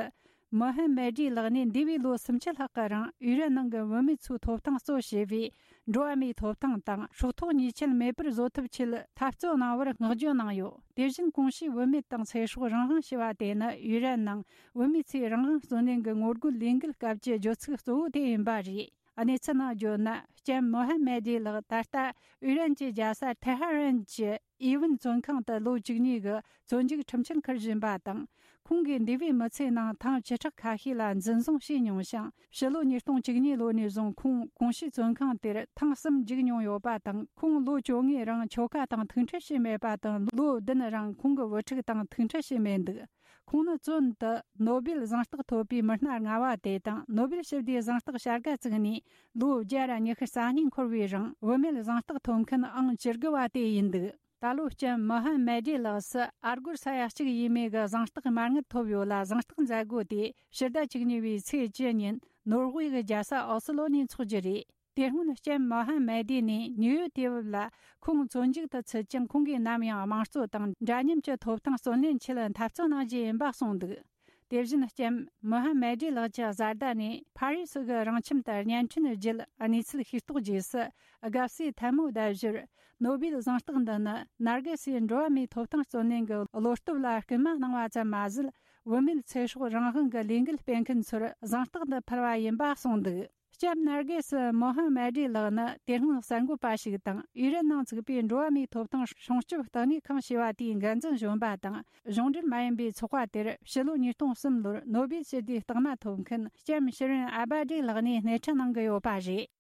མོ་ཧན་མེ་ཏྲི་ལགས་ནས་འདས་པའི་ལོ་སུམ་ཅུ་ལྷག་གི་རིང་ཨི་རན་ནང་གི་བུད་མེད་ཚོའི་ཐོབ་ཐང་གཙོ་བྱས་པའི་འགྲོ་བ་མིའི་ཐོབ་ཐང་དང་སྲོག་ཐོག་ཉེས་ཆད་མེད་པར་བཟོ་ཐབས་ཆེད་འཐབ་རྩོད་གནང་བར་བསྔགས་བརྗོད་གནང་ཡོད། དེ་བཞིན་གོང་ཞུས་བུད་མེད་དང་ཚེ་སྲོག་རང་དབང་ཞེས་པ་དེ་ནི་ཨི་རན་ནང་བུད་མེད་ཚོའི་རང་དབང་རྩོད་ལེན་གྱི་ངོ་རྒོལ་ལས་འགུལ་སྐབས་ཀྱི་བརྗོད་ཚིག་གཙོ་བོ་དེ་ཡིན་པ་རེད། གནས་ཚུལ་ནང་བརྗོད་ན། ལྕམ་མོ་ཧན་མེ་ཏྲི་ལགས་ད་ལྟ་ཨི་རན་གྱི་རྒྱལ་ས་ཐེ་ཧ་རན་གྱི་ཨི་ཝན་བཙོན་ཁང་དུ་ལོ་བཅུ་གཉིས་ཀྱི་བཙོན་འཇུག་ཁྲིམས་ཆད་འཁུར་བཞིན་པ་དང་། ཁོང་གིས་འདས་པའི་མི་ཚེའི་ནང་ཐེངས་བཅུ་ཕྲག་ཁ་ཤས་ལ་འཛིན་བཟུང་བྱས་མྱོང་ཞིང་། ཕྱི་ལོ་ཉིས་སྟོང་བཅུ་གཉིས་ལོ་ནས་བཟུང་ཁོང་གོང་ཞུས་བཙོན་ཁང་དེར་ཐེངས་གསུམ་འཇུག་མྱོང་ཡོད་པ་དང་། ཁོང་ལོ་བཅོ་ལྔའི་རིང་ཁྱོ་ག་དང་ཐུག་འཕྲད་བྱས་མེད་པ་དང་། ལོ་བདུན་རིང་ཁོང་གི་བུ་ཕྲུག་དང་ཐུག་འཕྲད་བྱས་མེད་འདུག་ཁོང་ནི་བཙོན་དུ་ནོ་བེལ་གཟེངས་རྟགས་ཐོབ་པའི་མི་སྣ་ལྔ་བ་དེ་དང་། ནོ་བེལ་ཞི་བདེའི་གཟེངས་རྟགས་བྱ་དགའ་བཙུགས་ནས་ལོ་བརྒྱ་ར་ཉི་ཤུ་རྩ་གཉིས་འཁོར་བའི་རིང་བུད་མེད་གཟེངས་རྟགས་ཐོབ་མཁན་ཨང་བཅུ་དགུ་བ་དེ་ཡིན་འདུག་ད་ལོ་ལྕམ་མོ་ཧན་མེ་ཏྲི་ལགས་སུ་ཨ་སྒོར་ས་ཡ་གཅིག་ཡས་མས་ཀྱི་གཟེངས་རྟགས་མ་དངུལ་ཐོབ་ཡོད་ལ། གཟེངས་རྟགས་མཛད་སྒོ་དེ་ཕྱི་ཟླ་བཅུ་གཉིས་པའི་ཚེས་བཅུ་ཉིན་ནོར་ཝེ་གི་རྒྱལ་ས་ཨོ་སི་ལོ་ནས་འཚོགས་རྒྱུ་རེད། དེ་སྔོན་ལྕམ་མོ་ཧན་མེ་ཏྲི་ནས་ནིའུ་ཡོག་དུས་བབ་ལ། ཁོང་བཙོན་འཇུག་ཏུ་ཚུད་ཀྱང་ཁོང་གིས་ནམ་ཡང་དམངས་གཙོ་དང་འདྲ་མཉམ་གྱི་ཐོབ་ཐང་རྩོད་ལེན་ཆེད་འཐབ་རྩོད་གནང་རྒྱུ་ཡིན་པ་གསུངས་འདུག་དེ་བཞིན་ལྕམ་མོ་ཧན་མེ་ཏྲི་ལགས་ཀྱི་བཟའ་ཟླ་ནས་ཕ་རི་སི་གི་རང་ཁྱིམ་དུ་བརྙན་འཕྲིན་བརྒྱུད་གནས་ཚུལ་ཤེས་རྟོགས་རྗེས་སུ། དགའ་བསུའི་ཐལ་མོ་བརྡབ་ཞོར། ནོ་བེལ་གཟེངས་རྟགས་འདི་ནི་ནར་གེ་སིའི་འགྲོ་བ་མིའི་ཐོབ་ཐང་རྩོད་ལེན་གྱི་བློ་སྟོབས་ལ་སྐུལ་མ་གནང་བ་ཙམ་མ་ཟད། བུད་མེད་ཚེ་སྲོག་རང་དབང་གི་ལས་འགུལ་སྤེལ་མཁན་ཚོར་གཟེངས་རྟགས་འདི་ཕུལ་བ་ཡིན་པ་གསུངས་འདུག་ལྕམ་ནར་གེ་སི་མོ་ཧན་མེ་ཏྲི་ལགས་ནི་དེ་སྔོན་གསར་འགོད་པ་ཞིག་དང་། ཨི་རན་ནང་བཙུགས་པའི་འགྲོ་བ་མིའི་ཐོབ་ཐང་སྲུང་སྐྱོབ་ལྟེ་གནས་ཁང་ཞེས་པ་དེའི་འགན་འཛིན་གཞོན་པ་དང་། གཞུང་འབྲེལ་མ་ཡིན་པའི་ཚོགས་པ་དེར་ཕྱི་ལོ་ཉིས་སྟོང་གསུམ་ལོར་ནོ་བེལ་ཞི་བདེའི་རྟགས་མ་ཐོབ་མཁན་ལྕམ་ཤི་རིན་ཨ་བྷ་ཏྲི་ལགས་ནས་སྣེ་ཁྲིད་གནང་གི་ཡོད་པ་རེད།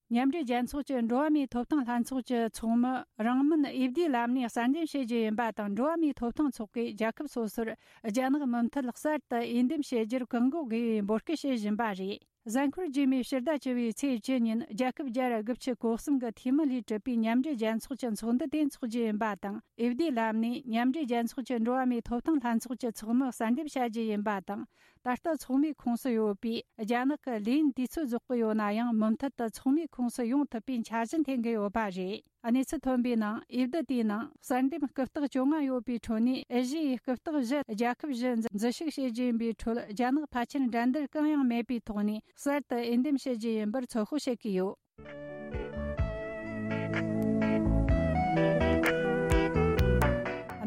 མཉམ་འབྲེལ་རྒྱལ་ཚོགས་ཀྱི་འགྲོ་བ་མིའི་ཐོབ་ཐང་ལྷན་ཚོགས་ཀྱི་ཚོགས་མི་རང་མོན་འོས་བསྡུའི་ལམ་ནས་གསར་འདེམས་བྱེད་རྒྱུ་ཡིན་པ་དང་། འགྲོ་བ་མིའི་ཐོབ་ཐང་ཚོགས་པས་རྒྱལ་ཁབ་སོ་སོར་རྒྱ་ནག་མུ་མཐུད་གསར་དུ་འོས་འདེམས་བྱེད་རྒྱུར་བཀག་འགོག་དགོས་པའི་འབོད་སྐུལ་བྱེད་བཞིན་པ་རེད། གཟའ་འཁོར་རྗེས་མའི་ཕྱི་ཟླ་བཅུ་བའི་ཚེས་བཅུ་ཉིན་རྒྱལ་ཁབ་བརྒྱ་ར་དགུ་བཅུ་གོ་གསུམ་གྱི་འཐུས་མི་ལས་གྲུབ་པའི་མཉམ་འབྲེལ་རྒྱལ་ཚོགས་ཀྱི་ཚོགས་འདུ་དེ་འཚོགས་རྒྱུ་ཡིན་པ་དང་། འོས་བསྡུའི་ལམ་ནས་མཉམ་འབྲེལ་རྒྱལ་ཚོགས་ཀྱི་འགྲོ་བ་མིའི་ཐོབ་ཐང་ལྷན་ཚོགས་ཀྱི་ཚོགས་མི་གསར་འདེམས་བྱ་རྒྱུ་ཡིན་པ་དང་། ད་ལྟ་ཚོགས་མིའི་ཁོངས་སུ་ཡོད་པའི་རྒྱ་ནག་གི་ལས་ཡུན་དུས་ཚོད་རྫོགས་ཀྱི་ཡོད་ན་ཡང་། མུ་མཐུད་དུ་ཚོགས་མིའི་ཁོངས་སུ་ཡོང་ཐུབ་པའི་འཆར་གཞི་འཐེན་གྱི་ཡོད་པ་རེད། གནས་ཚུལ་ཐོན་པའི་ནང་། འོས་བསྡུ་དེའི་ནང་གསར་འདེམས་སྐུ་རྟགས་བཅོ་ལྔ་ཡོད་པའི་ཁྲོད་ནས། ཨེ་ཤི་ཡའི་སྐུ་རྟགས་བཞི་རྒྱལ་ཁབ་བཞི་འཛུལ་ཞུགས་བྱེད་རྒྱུ་ཡིན་པའི་ཁྲོད། རྒྱ་ནག་ཕལ་ཆེར་འགྲན་བསྡུར་གང་ཡང་མེད་པའི་ཐོག་ནས་གསར་དུ་འོས་འདེམས་བྱེད་རྒྱུ་ཡིན་པར་ཚོད་དཔག་བྱེད་ཀྱི་ཡོད།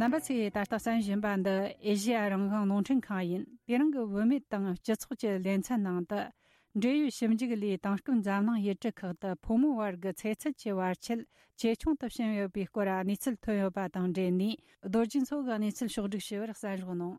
རྣམ་པ་ཚོས་ད་ལྟ་གསན་བཞིན་པ་འདི་ཨེ་ཤེ་ཡ་རང་དབང་རླུང་འཕྲིན་ཁང་ཡིན། དེ་རིང་གི་བུད་མེད་དང་སྤྱི་ཚོགས་ཀྱི་ལེ་ཚན་ནང་དུ། འབྲེལ་ཡོད་ཞིབ་འཇུག་ལས་དེང་སྐབས་འཛམ་གླིང་ཡུལ་གྲུ་ཁག་ཏུ་ཕོ་མོ་བར་གྱི་ཚེ་ཚད་ཀྱི་བར་ཆད་ཇེ་ཆུང་དུ་ཕྱིན་ཡོད་པའི་སྐོར་གནས་ཚུལ་ཐོན་ཡོད་པ་དང་འབྲེལ་ནས། རྡོ་རྗེ་མཚོ་གིས་གནས་ཚུལ་ཕྱོགས་བསྒྲིགས་ཞུ་བར་གསན་རོགས་གནང་།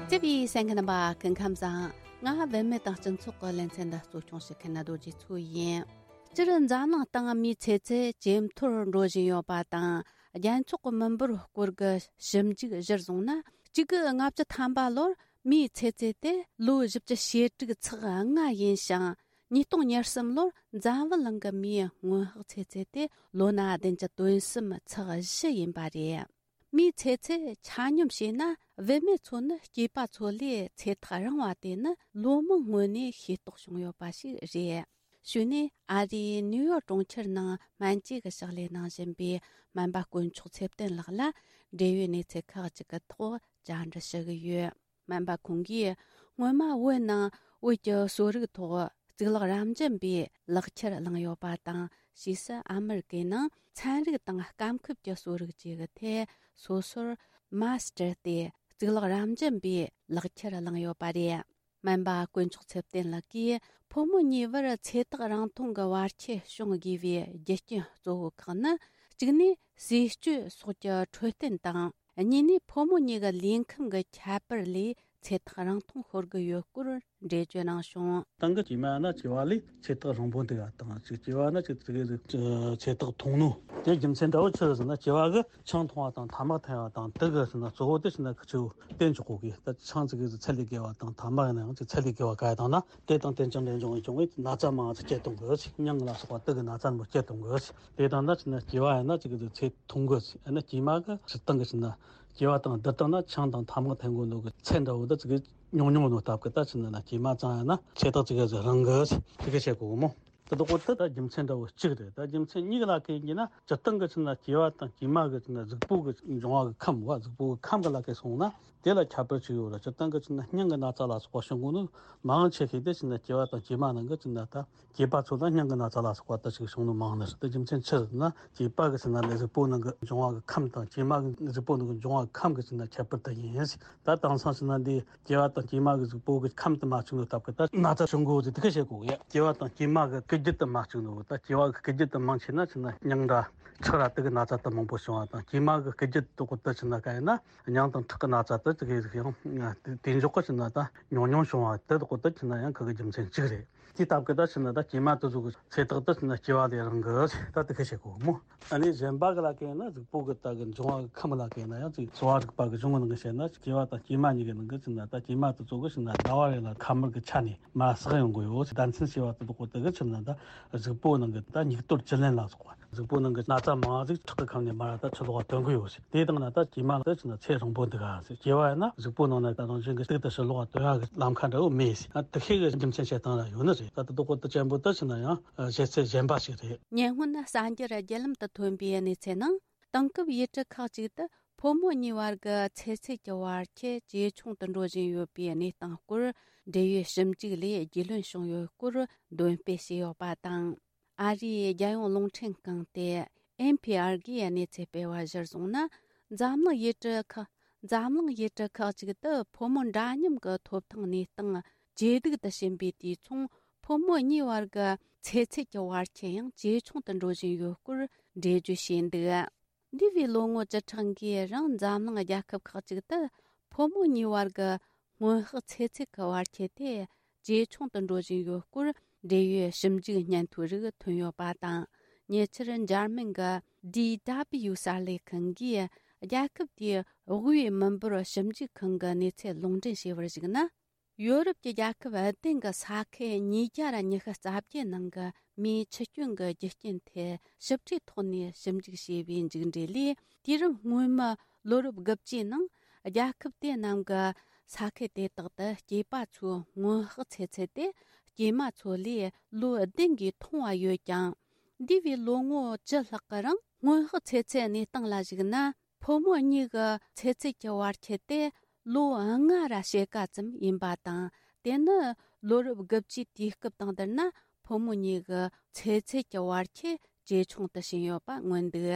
བརྩེ་བའི་གསན་མཁན་རྣམ་པ། སྐུ་ཁམས་བཟང་། ང་བུད་མེད་དང་སྤྱི་ཚོགས་ཀྱི་ལེ་ཚན་འདི་གཙོ་སྐྱོང་བྱེད་མཁན་རྡོ་རྗེ་མཚོ་ཡིན། སྤྱིར་འཛམ་གླིང་སྟེང་མིའི་ཚེ་ཚད་ཇེ་མཐོར་འགྲོ་བཞིན་ཡོད་པ་དང་། རྒྱལ་ཚོགས་ཀྱི་མི་འབོར་སྐོར་གྱི་ཞིབ་འཇུག་གཞིར་བཟུང་ན། གཅིག་དགུ་ལྔ་བཅུ་ཐམ་པ་ལོར་མིའི་ཚེ་ཚད་དེ་ལོ་བཞི་བཅུ་ཞེ་དྲུག་ཚེག་ལྔ་ཡིན་ཞིང་། ཉིས་སྟོང་ཉེར་གསུམ་ལོར་འཛམ་བུ་གླིང་གི་མིའི་སྔོན་དཔག་ཚེ་ཚད་དེ་ལོ་ན་བདུན་བཅུ་དོན་གསུམ་ཚེག་བཞི་ཡིན་པ་རེད། མིའི་ཚེ་ཚད་ཆ་སྙོམས་བྱས་ན། བུད་མེད་ཚོ་ནི་སྐྱེས་པ་ཚོ་ལས་ཚེ་ཐག་རིང་བ་དེ་ནི་ལོ་མང་སྔོན་ནས་ཤེས་རྟོགས་བྱུང་ཡོད་པ་ཞིག་རེད། གཞུག་ནས་ཨ་རིའི་ནིའུ་ཡོག་གྲོང་ཁྱེར་ནང་སྨན་བཅོས་ཀྱི་ཕྱག་ལས་གནང་བཞིན་པའི་སྨན་པ་དཀོན་མཆོག་ཚེ་བརྟན་ལགས་ལ། འབྲེལ་ཡོད་གནས་ཚུལ་ཁག་ཅིག་གི་ཐོག་བཅར་འདྲི་ཞུ་གི་ཡོད། སྨན་པ་ཁོང་གིས་ སྔོན་མ་བོད་ནང་བོད་ཀྱི་གསོ་རིག་ཐོག་གཙུག་ལག་རབ་འབྱམས་པའི་ལག་ཁྱེར་བླངས་ཡོད་པ་དང་། ཕྱིས་སུ་ཨ་མི་རི་ཀའི་ནང་ཚན་རིག་དང་སྐམ་ཁུལ་གྱི་གསོ་རིག་བཅས་ཀྱི་ཐད་སོ་སོར་མཱ་སི་ཊར་སྟེ་གཙུག་ལག་རབ་འབྱམས་པའི་ལག་ཁྱེར་བླངས་ཡོད་པ་རེད། སྨན་པ་དཀོན་མཆོག་ཚེ་བརྟན་ལགས་ཀྱིས་ཕོ་མོ་གཉིས་བར་ཚེ་ཐག་རིང་ཐུང་གི་བར་ཆད་བྱུང་དགོས་པའི་རྒྱུ་རྐྱེན་གཙོ་བོ་ཁག་ནི། གཅིག་ནས་ཟས་སྤྱོད་སོགས་ཀྱི་འཕྲོད་བསྟེན་དང་། གཉིས་ནས་ཕོ་མོ་གཉིས་ཀྱི་ལུས་ཁམས་ཀྱི་ཁྱད་པར་ལས་ཚེ་ཐག་རིང་ཐུང་ཤོར་གྱི་ཡོད་སྐོར་འགྲེལ་བརྗོད་གནང་བྱུང་། སྟེང་གི་སྐྱེས་མ་ན་སྐྱེ་བ་ལས་ཚེ་ཐག་རིང་པོ་འདུག་ག་དང་། གཅིག་སྐྱེ་བ་ན་གཅིག་ཚེ་གི་ཚེ་ཐག་ཐུང་ནོ། དེ་རྒྱུ་མཚན་འདྲ་བོ་ཆི་རེད་ཟེར་ན། སྐྱེ་བ་གི་ཆང་འཐུང་བ་དང་ཐ་མག་འཐེན་པ་དང་། དེ་གི་ཟེར་ན་གཙོ་བོ་དེ་ཟེར་ན་ཁི་ཆོ་བསྟེན་ཆོག་གོ་གི། ད་ཆང་ཚིག་གི་ཚད་ལས་བརྒལ་བ་དང་ཐ་མག་ཡིན་ན་ཡང་ཚད་ལས་བརྒལ་བ་ག་ཡ་དང་ན། དེ་དང་དེ་ཅང་འདྲེན་འབྱུང་བའི་འབྱུང་བའི་ན་ཚ་མང་ཚོ་སྐྱེ་གཏོང་གི། མྱང་ལ་སོགས་པ་དེ་གི་ན་ཚ་མོ་སྐྱེ་གཏོང་གི། དེ་དང་ན་ཟེར་ན་སྐྱེ་བ་ཡིན་ན་ཚིག་གི་ཚེ་ཐུང་གི། ཡིན་ན་སྐྱེས་མ་གི་སྤྱིར་བཏང་གི་ཟེར་ན་སྐྱེ་བ་དང་བསྡུར་བཏང་ན་ཆང་དང་ཐ་མག་འཐེན་དགོས་ནོ་གི་ཚད་འདྲ་བོ་འདི་ཚིག་གི་ཉུང་ཉུང་ནོ་སྟབས་ཀྱིས། ད་ཟེར་ན་ན་སྐྱེས་མ་ཙང་ཡིན་ན་ཚེ་ཐག་ཚིག་གི་ཚེ་རིང་གི་ཚིག་གི་བཤད་གོ་གི་མོ། དེ་དག་པོ་དེ་ད་རྒྱུ་མཚན་འདྲ་བོ་གཅིག་རེད། ད་རྒྱུ་མཚན་གཉིས་ཀ་ལ་ཁེལ་གྱི་ན། སྤྱིར་བཏང་གི་ཟེར་ན་སྐྱེས་པ་དང་སྐྱེས་མ་གི་ཟེར་ན་གཟུགས་པོ་གི་འབྱུང་བ་གི་ཁམས་བ། གཟུགས་པོ་གི་ཁམས་གི་ལ་ཁེལ་སོང་ན་དེ་ལ་ཁྱད་པར་ཅིག་ཡོད་རེད། སྤྱིར་བཏང་གི་ཟེར་ན་སྙིང་གི་ན་ཚ་ལ་སོགས་པ་བྱུང་གོ་ནོ་མང་ཆེ་ཤོས་དེ་ཟེར་ན་སྐྱེས་པ་དང་སྐྱེས་མ་ནང་གི་ཟེར་ན་ད་སྐྱེས་པ་ཚོ་ལ་སྙིང་གི་ན་ཚ་ལ་སོགས་པ་ད་ཅིག་བྱུང་ནོ་མང་ནི་རེད། དེ་རྒྱུ་མཚན་ཆི་རེད་ཟེར་ན། སྐྱེས་པ་གི་ཟེར་ན་ལས་གཟུགས་པོ་ནང་གི་འབྱུང་བ་གི་ཁམས་དང་སྐྱེས་མ་གི་གཟུགས་པོ་ནང་གི་འབྱུང་བ་གི་ཁམས་གི་ཟེར་ན་ཁྱད་པར་དེ་ཡིན། ད་དེང་སང་ཟེར་ན་འདི་སྐྱེས་པ་དང་སྐྱེས་མ་གི་གཟུགས་པོ་གི་ཁམས་དེ་མ་གཅིག་ནོ་སྟབས་ཀྱིས་ད་ན་ཚ་བྱུང་གོ་ཟེར་དེ་ག་བཤད་གོ་གི་ཡ། སྐྱེས་པ་དང་སྐྱེས་མ་གི་སྐུལ་རྒྱུ་དེ་མ་གཅིག་ནོ། ད་སྐྱེས་པ་གི་སྐུལ་རྒྱུ་དེ་མང་ཆེ་ན་ཟེར་ན་སྙིང་འདྲ་ཁྲག་ར་དེ་གི་ན་ཚ་དེ་མང་པོ་བྱུང་བ་དང་། སྐྱེས་མ་གི་སྐུལ་རྒྱུ་དེ་དག་པོ་དེ་ཟེར་ན་ག་ཡིན་ན་སྙིང་དང་ཁྲག་གི་ན་ཚ་དེ་ཚིག་གི་ཡང་དེ་འཇོག་གི་ཟེར་ན་ད་ཉུང་ཉུང་བྱུང་བ་དེ་དག་པོ་དེ་ཟེར་ན་ཡང་ཁ་གི་རྒྱུ་མཚན་གཅིག་རེད། དེའི་སྟབས་ཀྱིས་ད་ཟེར་ན་ད་སྐྱེས་མ་དེ་ཚོ་གི་ཚེ་ཐག་དེ་ཟེར་ན་སྐྱེས་པ་ལས་རིང་གི་ད་དེ་ག་བཤད་གོ་མོ། ཨ་ནི་གཞན་པ་གི་ལ་ཁེལ་ན་གཟུགས་པོ་གི་ད་གི་འབྱུང་བ་གི་ཁམས་ལ་ཁེལ་ན་ཡང་ཅིག་གསོ་བ་རིག་པ་གི་གཞུང་ནང་གི་བཤད་ན། སྐྱེས་པ་དང་སྐྱེས་མ་གཉིས་ཀྱི་ནང་གི་ཟེར་ན་ད་སྐྱེས་མ་དེ་ཚོ་གི་ཟེར་ན་ཟླ་བ་རེ་ལ་ཁ་མར་གི་ཆ་ནས་མར་བསགས་ཡོང་གི་ཡོད། ཟླ་མཚན་ཞེས་པ་དེ་དག་པོ་དེ་གི་ཆི་ཟེར་ན་ད་གཟུགས་པོ་ནང་གི་ད་སྙིགས་དོར་བཅུད་ལེན་ལ་སོགས་པ། གཟུགས་པོ་ནང་གི་ན་ཚ་མང་ཟིག་ཁྲག་གི་ཁམས་ནས་མར་ད་ཕྱི་ལོགས་ཐོན་གི་ཡོད་ཟེར། དེ་དང་ན་ད་སྐྱེས་མ་ལ་ད་ཟེར་ན་ཚེ་རིང་པོ་འདུག་ག་ཟེར། སྐྱེས་པ་ཡིན་ན་གཟུགས་པོ་ནང་ན་ད་རང་བཞིན་གྱི་གཅིག་ཏུ་ཕྱི་ལོགས་ཐོན་ཡག་གི་ལམ་ཁ་འདྲ་བོ་མེད་ཟེར། ཨ་དེ་ཤེས་གི་རྒྱུ་མཚན་བཤད་སྟངས་ལ་ཡོད་ནི་རེད། ད་དེ་དག་པོ་དེ་ཅན་པོ་ད་ཟེར་ན་ཡང་བཤད་ཚད་གཞན་པ་ཞིག་རེད། ཉེ་སྔོན་གསར་འགྱུར་བརྒྱུད་ལམ་དུ་ཐོན་པའི་གནས་ཚུལ་ནང་། དེང་སྐབས་ཡུལ་གྲུ་ཁག་ཅིག་ཏུ་ཕོ་མོ་གཉིས་བར་གྱི་ཚེ་ཚད་ཀྱི་བར་ཁྱད་ཇེ་ཆུང་དུ་འགྲོ་བཞིན་ཡོད་པའི་གནས་སྟངས་སྐོར་འབྲེལ་ཡོད་ཞིབ་འཇུག་ལས་རྒྱུས་ལོན་བྱུང་ཡོད་སྐོར་འདོན་སྤེལ་བྱས་ཡོད་པ་དང་། ཨ་རིའི་རྒྱལ་ཡོངས་རླུང་འཕྲིན་ཁང་སྟེ་ཨེན་ཕི་ཨར་གྱིས་གནས་ཚུལ་སྤེལ་བ་གཞིར་བཟུང་ན། འཛམ་གླིང་ཡུལ་གྲུ་ཁག་འཛམ་གླིང་ཡུལ་གྲུ་ཁག་ཅིག་ཏུ་ཕོ་མོ་འདྲ་མཉམ་གྱི་ཐོབ་ཐང་གནས་སྟངས་ཇེ་སྡུག་ཏུ་ཕྱིན་པའི་དུས་མཚུངས། ཕོ་མོ་གཉིས་བར་གྱི་ཚེ་ཚད་ཀྱི་བར་ཁྱད་ཡང་ཇེ་ཆུང་དུ་འགྲོ་བཞིན་ཡོད་སྐོར་འགྲེལ་བརྗོད་བྱས་འདུག་འདས་པའི་ལོ་ངོ་བཅུ་ཕྲག་འགའི་རིང་འཛམ་གླིང་རྒྱལ་ཁབ་ཁག་ཅིག་ཏུ་ཕོ་མོ་གཉིས་བར་གྱི་སྔོན་དཔག་ཚེ་ཚད་ཀྱི་བར་ཁྱད་དེ་ཇེ་ཆུང་དུ་འགྲོ་བཞིན་ཡོད་སྐོར་འབྲེལ་ཡོད་ཞིབ་འཇུག་སྙན་ཐོའི་རིགས་ཐོན་ཡོད་པ་དང་། ཉེ་ཆར་འཇར་མན་གྱི་ཌི་ཌབ་ལིའུ་གསར་ལས་ཁང་གིས་རྒྱལ་ཁབ་དེའི་དབུས་མི་འབོར་ཞིབ་འཇུག་ཁང་གི་གནས་ཚུལ་ལུང་འདྲེན་བྱས་པར་གཞིགས་ན། ཡོ་རོབ་ཀྱི་རྒྱལ་ཁབ་བདུན་གྱི་ས་ཁུལ་ཉིས་བརྒྱ་ར་ཉི་ཤུ་རྩ་བརྒྱད་ནང་གི་མིའི་འཆི་སྐྱོན་གྱི་རྒྱུ་རྐྱེན་ཐད་ཞིབ་ཕྲའི་ཐོག་ནས་ཞིབ་འཇུག་བྱས་པའི་མཇུག་འབྲས་ལས། དུས་རབས་སྔོན་མའི་ལོ་རབས་དགུ་བཅུའི་ནང་རྒྱལ་ཁབ་དེ་རྣམས་ཀྱི་ས་ཁུལ་དེ་དག་ཏུ་སྐྱེས་པ་ཚོའི་སྔོན་དཔག་ཚེ་ཚད་དེ་སྐྱེས་མ་ཚོ་ལས་ལོ་བདུན་གྱིས་ཐུང་བ་ཡོད་ཀྱང་། འདས་པའི་ལོ་ངོ་བཅུ་ལྷག་གི་རིང་སྔོན་དཔག་ཚེ་ཚད་གནས་སྟངས་ལ་གཞིགས་ན། ཕོ་མོ་གཉིས་ཀྱི་ཚེ་ཚད་ཀྱི་བར་ཁྱད་དེ་ལོ་ལྔ་ར་ཕྱེད་ཀ་ཙམ་ཡིན་པ་དང་། དེ་ནི་ལོ་རབས་དགུ་བཅུའི་དུས་སྐབས་དང་བསྡུར་ན་ཕོ་མོ་གཉིས་ཀྱི་ཚེ་ཚད་ཀྱི་བར་ཁྱད་ཇེ་ཆུང་དུ་ཕྱིན་ཡོད་པ་མངོན་འདུག་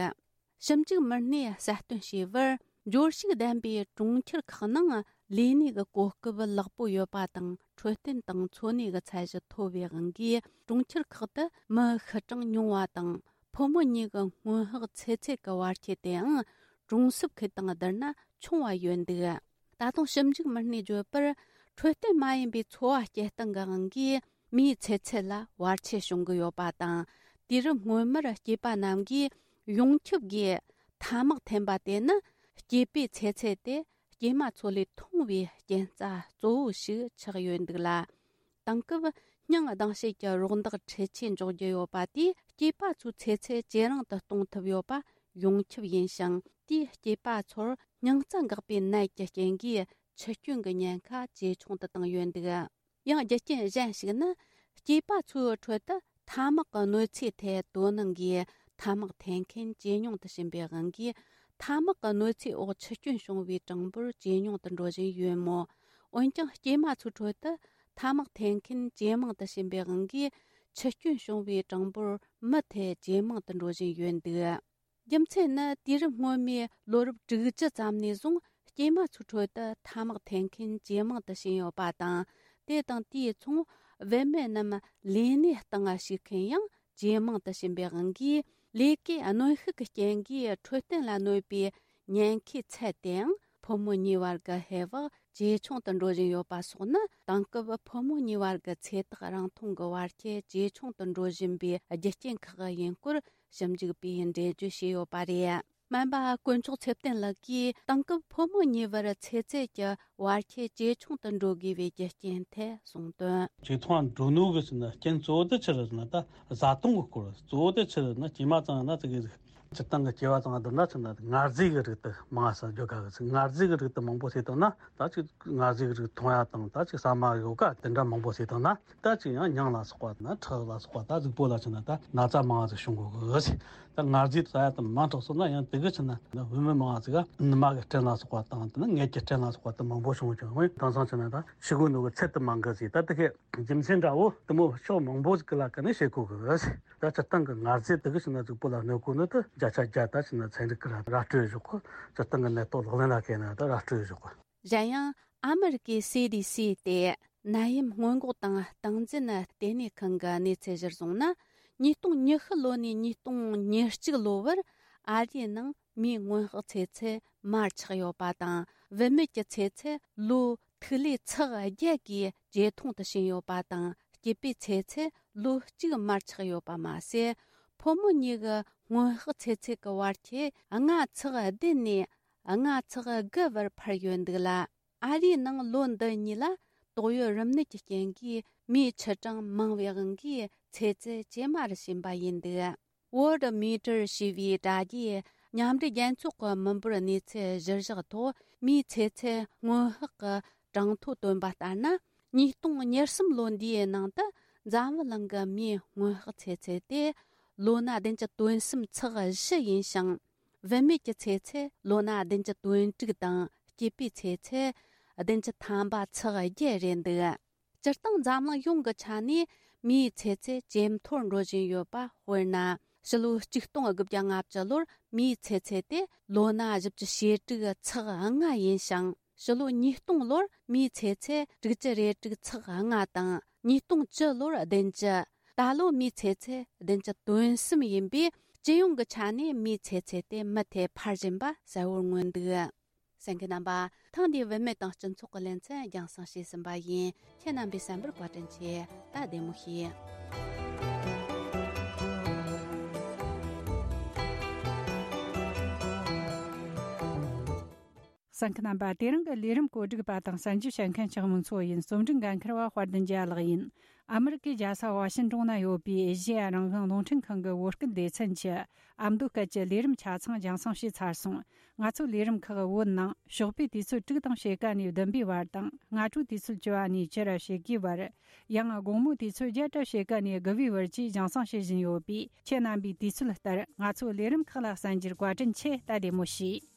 ཞིབ་འཇུག་མི་སྣས་གསལ་སྟོན་བྱས་པར། འབྱོར་ཕྱུག་ལྡན་པའི་གྲོང་ཁྱེར་ཁག་ནང་ལས་གནས་ཀྱི་གོ་སྐབས་ལེགས་པོ་ཡོད་པ་དང་། འཕྲོད་བསྟེན་དང་འཚོ་གནས་ཀྱི་ཚད་གཞི་མཐོ་བའི་དབང་གིས། གྲོང་ཁྱེར་ཁག་ཏུ་མི་ཤི་གྲངས་ཉུང་བ་དང་། ཕོ་མོ་གཉིས་ཀྱི་སྔོན་དཔག་ཚེ་ཚད་ཀྱི་བར་ཁྱད་དེའང་གྲོང་གསེབ་ཁུལ་དང་བསྡུར་ན་ཆུང་བ་ཡོད་འདུག་ད་དུང་ཞིབ་འཇུག་མི་སྣས་བརྗོད་པར། འཕྲོད་བསྟེན་མ་ཡིན་པའི་འཚོ་བ་སྐྱེལ་སྟངས་ཀྱི་དབང་གིས། མིའི་ཚེ་ཚད་ལ་བར་ཆད་བྱུང་གི་ཡོད་པ་དང་། དུས་རབས་སྔོན་མར་སྐྱེས་པ་རྣམས་ཀྱིས་ཡོངས་ཁྱབ་ཀྱིས་ཐ་མག་འཐེན་པ་དེ་ནི་སྐྱེས་པའི་ཚེ་ཚད་དེ་སྐྱེས་མ་ཚོ་ལས་ཐུང་བའི་རྐྱེན་རྩ་གཙོ་བོ་ཞིག་ཆགས་ཡོད་འདུག་ལ། དེང་སྐབས་སྙིང་སྡང་བྱེད་ཀྱི་རོགས་འདེགས་འཕྲུལ་ཆས་འཇོག་རྒྱུ་ཡོད་པ་དེས་སྐྱེས་པ་ཚོའི་ཚེ་ཚད་ཇེ་རིང་དུ་གཏོང་ཐུབ་ཡོད་པ་ཡོངས་ཁྱབ་ཡིན་ཞིང་། དེས་སྐྱེས་པ་ཚོར་སྙིང་རྩ་འགག་པའི་ནད་ཀྱི་རྐྱེན་གྱིས་འཆི་སྐྱོན་གྱི་ཉེན་ཁ་ཇེ་ཆུང་དུ་བཏང་ཡོད་འདུག་ཡང་རྒྱུ་རྐྱེན་གཞན་ཞིག་ནི། སྐྱེས་པ་ཚོའི་ཁྲོད་དུ་ཐ་མག་གི་གནོད་འཚེའི་ཐད་དོ་སྣང་གིས་ཐ་མག་འཐེན་མཁན་ཇེ་ཉུང་དུ་ཕྱིན་པའི་དབང་གིས། ཐ་མག་གི་གནོད་འཚེའི་འོག་འཆི་སྐྱོན་བྱུང་བའི་གྲངས་འབོར་ཇེ་ཉུང་དུ་འགྲོ་བཞིན་ཡོད་མོད། འོན་ཀྱང་སྐྱེས་མ་ཚོའི་ཁྲོད་དུ་ཐ་མག་འཐེན་མཁན་ཇེ་མང་དུ་ཕྱིན་པའི་དབང་གིས་འཆི་སྐྱོན་བྱུང་བའི་གྲངས་འབོར་མུ་མཐུད་ཇེ་མང་དུ་འགྲོ་བཞིན་ཡོད་འདུག་རྒྱུ་མཚན་ནི་དུས་རབས་སྔོན་མའི་ལོ་རབས་དྲུག་ཅུ་ཙམ་ནས་བཟུང་སྐྱེས་མ་ཚོའི་ཁྲོད་དུ་ཐ་མག་འཐེན་མཁན་ཇེ་མང་དུ་ཕྱིན་ཡོད་པ་དང་། དེ་དང་དེའི་མཚུངས་བུད་མེད་རྣམས་ལས་གནས་སྟེང་ཞུགས་མཁན་ཡང་ཇེ་མང་དུ་ཕྱིན་པའི་དབང་གིས། ལས་ཀའི་གནོན་ཤུགས་ཀྱི་རྐྱེན་གྱིས་འཕྲོད་བསྟེན་ལ་གནོད་པའི་ཉེན་ཁའི་ཚད་དེའང་ཕོ་མོ་གཉིས་བར་གྱི་ཧེ་བག་ཇེ་ཆུང་དུ་འགྲོ་བཞིན་ཡོད་པ་སོགས་ནི། དེང་སྐབས་ཕོ་མོ་གཉིས་བར་གྱི་ཚེ་ཐག་རིང་ཐུང་གི་བར་ཁྱད་ཇེ་ཆུང་དུ་འགྲོ་བཞིན་པའི་རྒྱུ་རྐྱེན་ཁག་ཡིན་སྐོར་ཞིབ་འཇུག་པས་འགྲེལ་བརྗོད་བྱས་ཡོད་པ་རེད། སྨན་པ་དཀོན་མཆོག་ཚེ་བརྟན་ལགས་ཀྱིས་དེང་སྐབས་ཕོ་མོ་གཉིས་བར་ཚེ་ཚད་ཀྱི་བར་ཁྱད་ཇེ་ཆུང་དུ་འགྲོ་དགོས་པའི་རྒྱུ་རྐྱེན་ཐད་གསུངས་དོན། ཇེ་ཐུང་ང་འགྲོ་ནོ་གི་ཟེར་ན་རྐྱེན་གཙོ་བོ་དེ་ཆི་རེད་ཟེར་ན། ད་བཟའ་བཏུང་གི་སྐོར། གཙོ་བོ་དེ་ཆི་རེད་ཟེར་ན། སྐྱེས་མ་ཚང་ན་ཙི་གེ་ཟིག་སྤྱིར་བཏང་གི་སྐྱེ་བ་ཚང་བསྡུར་ན་ཆི་ན་ངར་རྫས་ཀྱི་རིགས་དེ་མང་ས་འཇོག་ག་གི་ཟེར། ངར་རྫས་ཀྱི་རིགས་དེ་མང་པོ་བཟས་བཏང་ན། ད་ཅིག་ངར་རྫས་ཀྱི་རིགས་འཐུང་ཡ་དང་། ད་ཅིག་ཟ་མ་ཡོ་ག་དེ་འདྲ་མང་པོ་བཟས་བཏང་ན། ད་ཅིག་ཡང་མྱང་ལ་སོགས་པ་དང་ཁྲག་ལ་སོགས་པ། ད་གཟུགས་པོ་ལ་ཆི་ན་ད་ན་ཚ་མང་ང་ཟིག་བྱུང་གོ་གི་ཟེར། ད་ངར་རྫས་ཟ་ཡ་དེ་མང་དྲགས་སོང་ན་ཡང་དེ་གི་ཆི་ན་བུད་མེད་མང་ང་ཟིག་ག་ནུ་མ་གི་སྐྲན་ལ་སོགས་པ་དང་། དེ་ནི་མངལ་གྱི་སྐྲན་ལ་སོགས་པ་དེ་མང་པོ་བྱུང་ཀྱང་། འོན་དེང་སང་ཆི་ན་ད་ཤི་གོ་ནོ་གི་ཚད་དེ་མང་གི་ཟེར། ད་དེ་གི་རྒྱུ་མཚན་འདྲ་བོ་དེ་མོ་ཕྱོགས་མང་པོ་ཟིག་གི་ལ་ཀ་ནས་བཤད་གོ་གི་ཟེར། ད་སྤྱིར་བཏང་གི་ངར་རྫས་དེ་གི་ཆི་ན་གཟུགས་པོ་ལ་གནོད་གོ་ནོ་དེ་བརྒྱ་ཆ་བརྒྱ་ད་ཆི་ན་ཚན་རིག་གི་ར་ར་སྤྲོད་བཞག་གོ། སྤྱིར་བཏང་གི་ནད་ཐོག་ལག་ལེན་ལ་བཀལ་ན་ད་ར་སྤྲོད་བཞག་གོ། གཞན་ཡང་ཨ་མི་རི་ཀའི་སི་ཌི་སི་སྟེ་ནད་ཡམས་སྔོན་འགོག་དང་སྟངས་འཛིན་ལྟེ་གནས་ཁང་གི་གནས་ཚུལ་གཞིར་བཟུང་ན། ཉིས་སྟོང་ཉི་ཤུ་ལོ་ནས་ཉིས་སྟོང་ཉེར་གཅིག་ལོ་བར་ཨ་རིའི་ནང་མིའི་སྔོན་དཔག་ཚེ་ཚད་མར་ཆག་ཡོད་པ་དང་། བུད་མེད་ཀྱི་ཚེ་ཚད་ལོ་ཐིག་ལེ་ཚེག་བརྒྱད་ཀྱིས་ཇེ་ཐུང་དུ་ཕྱིན་ཡོད་པ་དང་། སྐྱེས་པའི་ཚེ་ཚད་ལོ་གཅིག་མར་ཆག་ཡོད་པ་མ་ཟད། ཕོ་མོ་གཉིས་ཀྱི་སྔོན་དཔག་ཚེ་ཚད་ཀྱི་བར་ཁྱད་ལྔ་ཚེག་བདུན་ནས་ལྔ་ཚེག་དགུ་བར་འཕར་ཡོད་འདུག་ལ། ཨ་རིའི་ནང་ལོ་འདི་གཉིས་ལ་ཏོག་དབྱིབས་རིམས་ནད་ཀྱི་རྐྱེན་གྱིས་མིའི་ཆུ་གྲངས་མང་བའི་དབང་གིས་ཚེ་ཚད་ཇེ་དམའ་རུ་ཕྱིན་པ་ཡིན་འདུག Worldometer ཞེས་པའི་དྲ་རྒྱའི་མཉམ་འབྲེལ་རྒྱལ་ཚོགས་ཀྱི་མི་འབོར་གནས་ཚུལ་གཞིར་བཞག་ཐོག་མིའི་ཚེ་ཚད་སྔོན་དཔག་གི་གྲངས་ཐོ་བཏོན་པ་ལྟར་ན། ཉིས་སྟོང་ཉེར་གསུམ་ལོ་འདིའི་ནང་དུ་འཛམ་བུ་གླིང་གི་མིའི་སྔོན་དཔག་ཚེ་ཚད་དེ་ལོ་ན་བདུན་ཅུ་དོན་གསུམ་ཚེག་བཞི་ཡིན་ཞིང་། བུད་མེད་ཀྱི་ཚེ་ཚད་ལོ་ན་བདུན་ཅུ་དོན་དྲུག་དང་། སྐྱེས་པའི་ཚེ་ཚད་བདུན་ཅུ་ཐམ་པ་ཚེག་བརྒྱད་རེད་འདུག་སྤྱིར་བཏང་འཛམ་གླིང་ཡོངས་ཀྱི་ཆ་ནས་མིའི་ཚེ་ཚད་ཇེ་མཐོར་འགྲོ་བཞིན་ཡོད་པ། དཔེར་ན། ཕྱི་ལོ་ཆིག་སྟོང་དགུ་བརྒྱ་ལྔ་བཅུ་ལོར་མིའི་ཚེ་ཚད་དེ་ལོ་ན་བཞི་བཅུ་ཞེ་དྲུག་ཚེག་ལྔ་ཡིན་ཞིང་། ཕྱི་ལོ་ཉིས་སྟོང་ལོར་མིའི་ཚེ་ཚད་དྲུག་ཅུ་རེ་དྲུག་ཚེག་ལྔ་དང་། ཉིས་སྟོང་བཅུ་ལོར་བདུན་ཅུ། ད་ལོ་མིའི་ཚེ་ཚད་བདུན་ཅུ་དོན་གསུམ་ཡིན་པས། སྤྱི་ཡོངས་ཀྱི་ཆ་ནས་མིའི་ཚེ་ཚད་དེ་མུ་མཐུད་འཕར་བཞིན་པ་གསལ་བོར་མངོན་འདུག་གསན་མཁན་རྣམ་པ། ཐེངས་འདིའི་བུད་མེད་དང་སྤྱི་ཚོགས་ཀྱི་ལེ་ཚན་རྒྱང་སྲིང་བྱས་ཟིན་པ་ཡིན། ཁྱེད་རྣམ་པས་གསན་པར་བཀའ་དྲིན་ཆེ། ད་བདེ་མོ་བྱོས། གསན་མཁན་རྣམ་པ། དེ་རིང་གི་ལས་རིམ་གོ་སྒྲིག་པ་དང་གསན་རྒྱུ་བྱེད་མཁན་ཆགས་མོ་མཚོ་ཡིན། རྩོམ་སྒྲིག་འགན་འཁུར་བ་དཔལ་ལྡན་རྒྱལ་ལགས་ཡིན། ཨ་མི་རི་ཀའི་རྒྱལ་ས་ཝ་ཤིན་ཏོན་ན་ཡོད་པའི་ཨེ་ཤེ་ཡ་རང་དབང་རླུང་འཕྲིན་ཁང་གི་བོད་སྐད་སྡེ་ཚན་གྱི་ཨ་མདོ་སྐད་ཀྱི་ལས་རིམ་ཆ་ཚང་རྒྱང་སྲིང་བྱས་ཚར་སོང་། ང་ཚོའི་ལས་རིམ་ཁག་བོད་ནང་ཞོགས་པའི་དུས་ཚོད་དྲུག་དང་ཕྱེད་ཀ་ནས་བདུན་པའི་བར་དང་། སྔ་དྲོའི་དུས་ཚོད་བཅུ་བ་ནས་བཅུ་ར་ཕྱེད་ཀའི་བར། ཡང་དགོང་མོའི་དུས་ཚོད་བརྒྱད་ར་ཕྱེད་ཀ་ནས་དགུ་པའི་བར་བཅས་རྒྱང་སྲིང་བྱེད་བཞིན་ཡོད་པས། ཁྱེད་རྣམ་པས་དུས་ཚོད་ལྟར་ང་ཚོའི་ལས་རིམ་ཁག་ལ་གསན་རྒྱུར་བཀའ་དྲིན་ཆེ། ད་བདེ་མོ་བྱོས།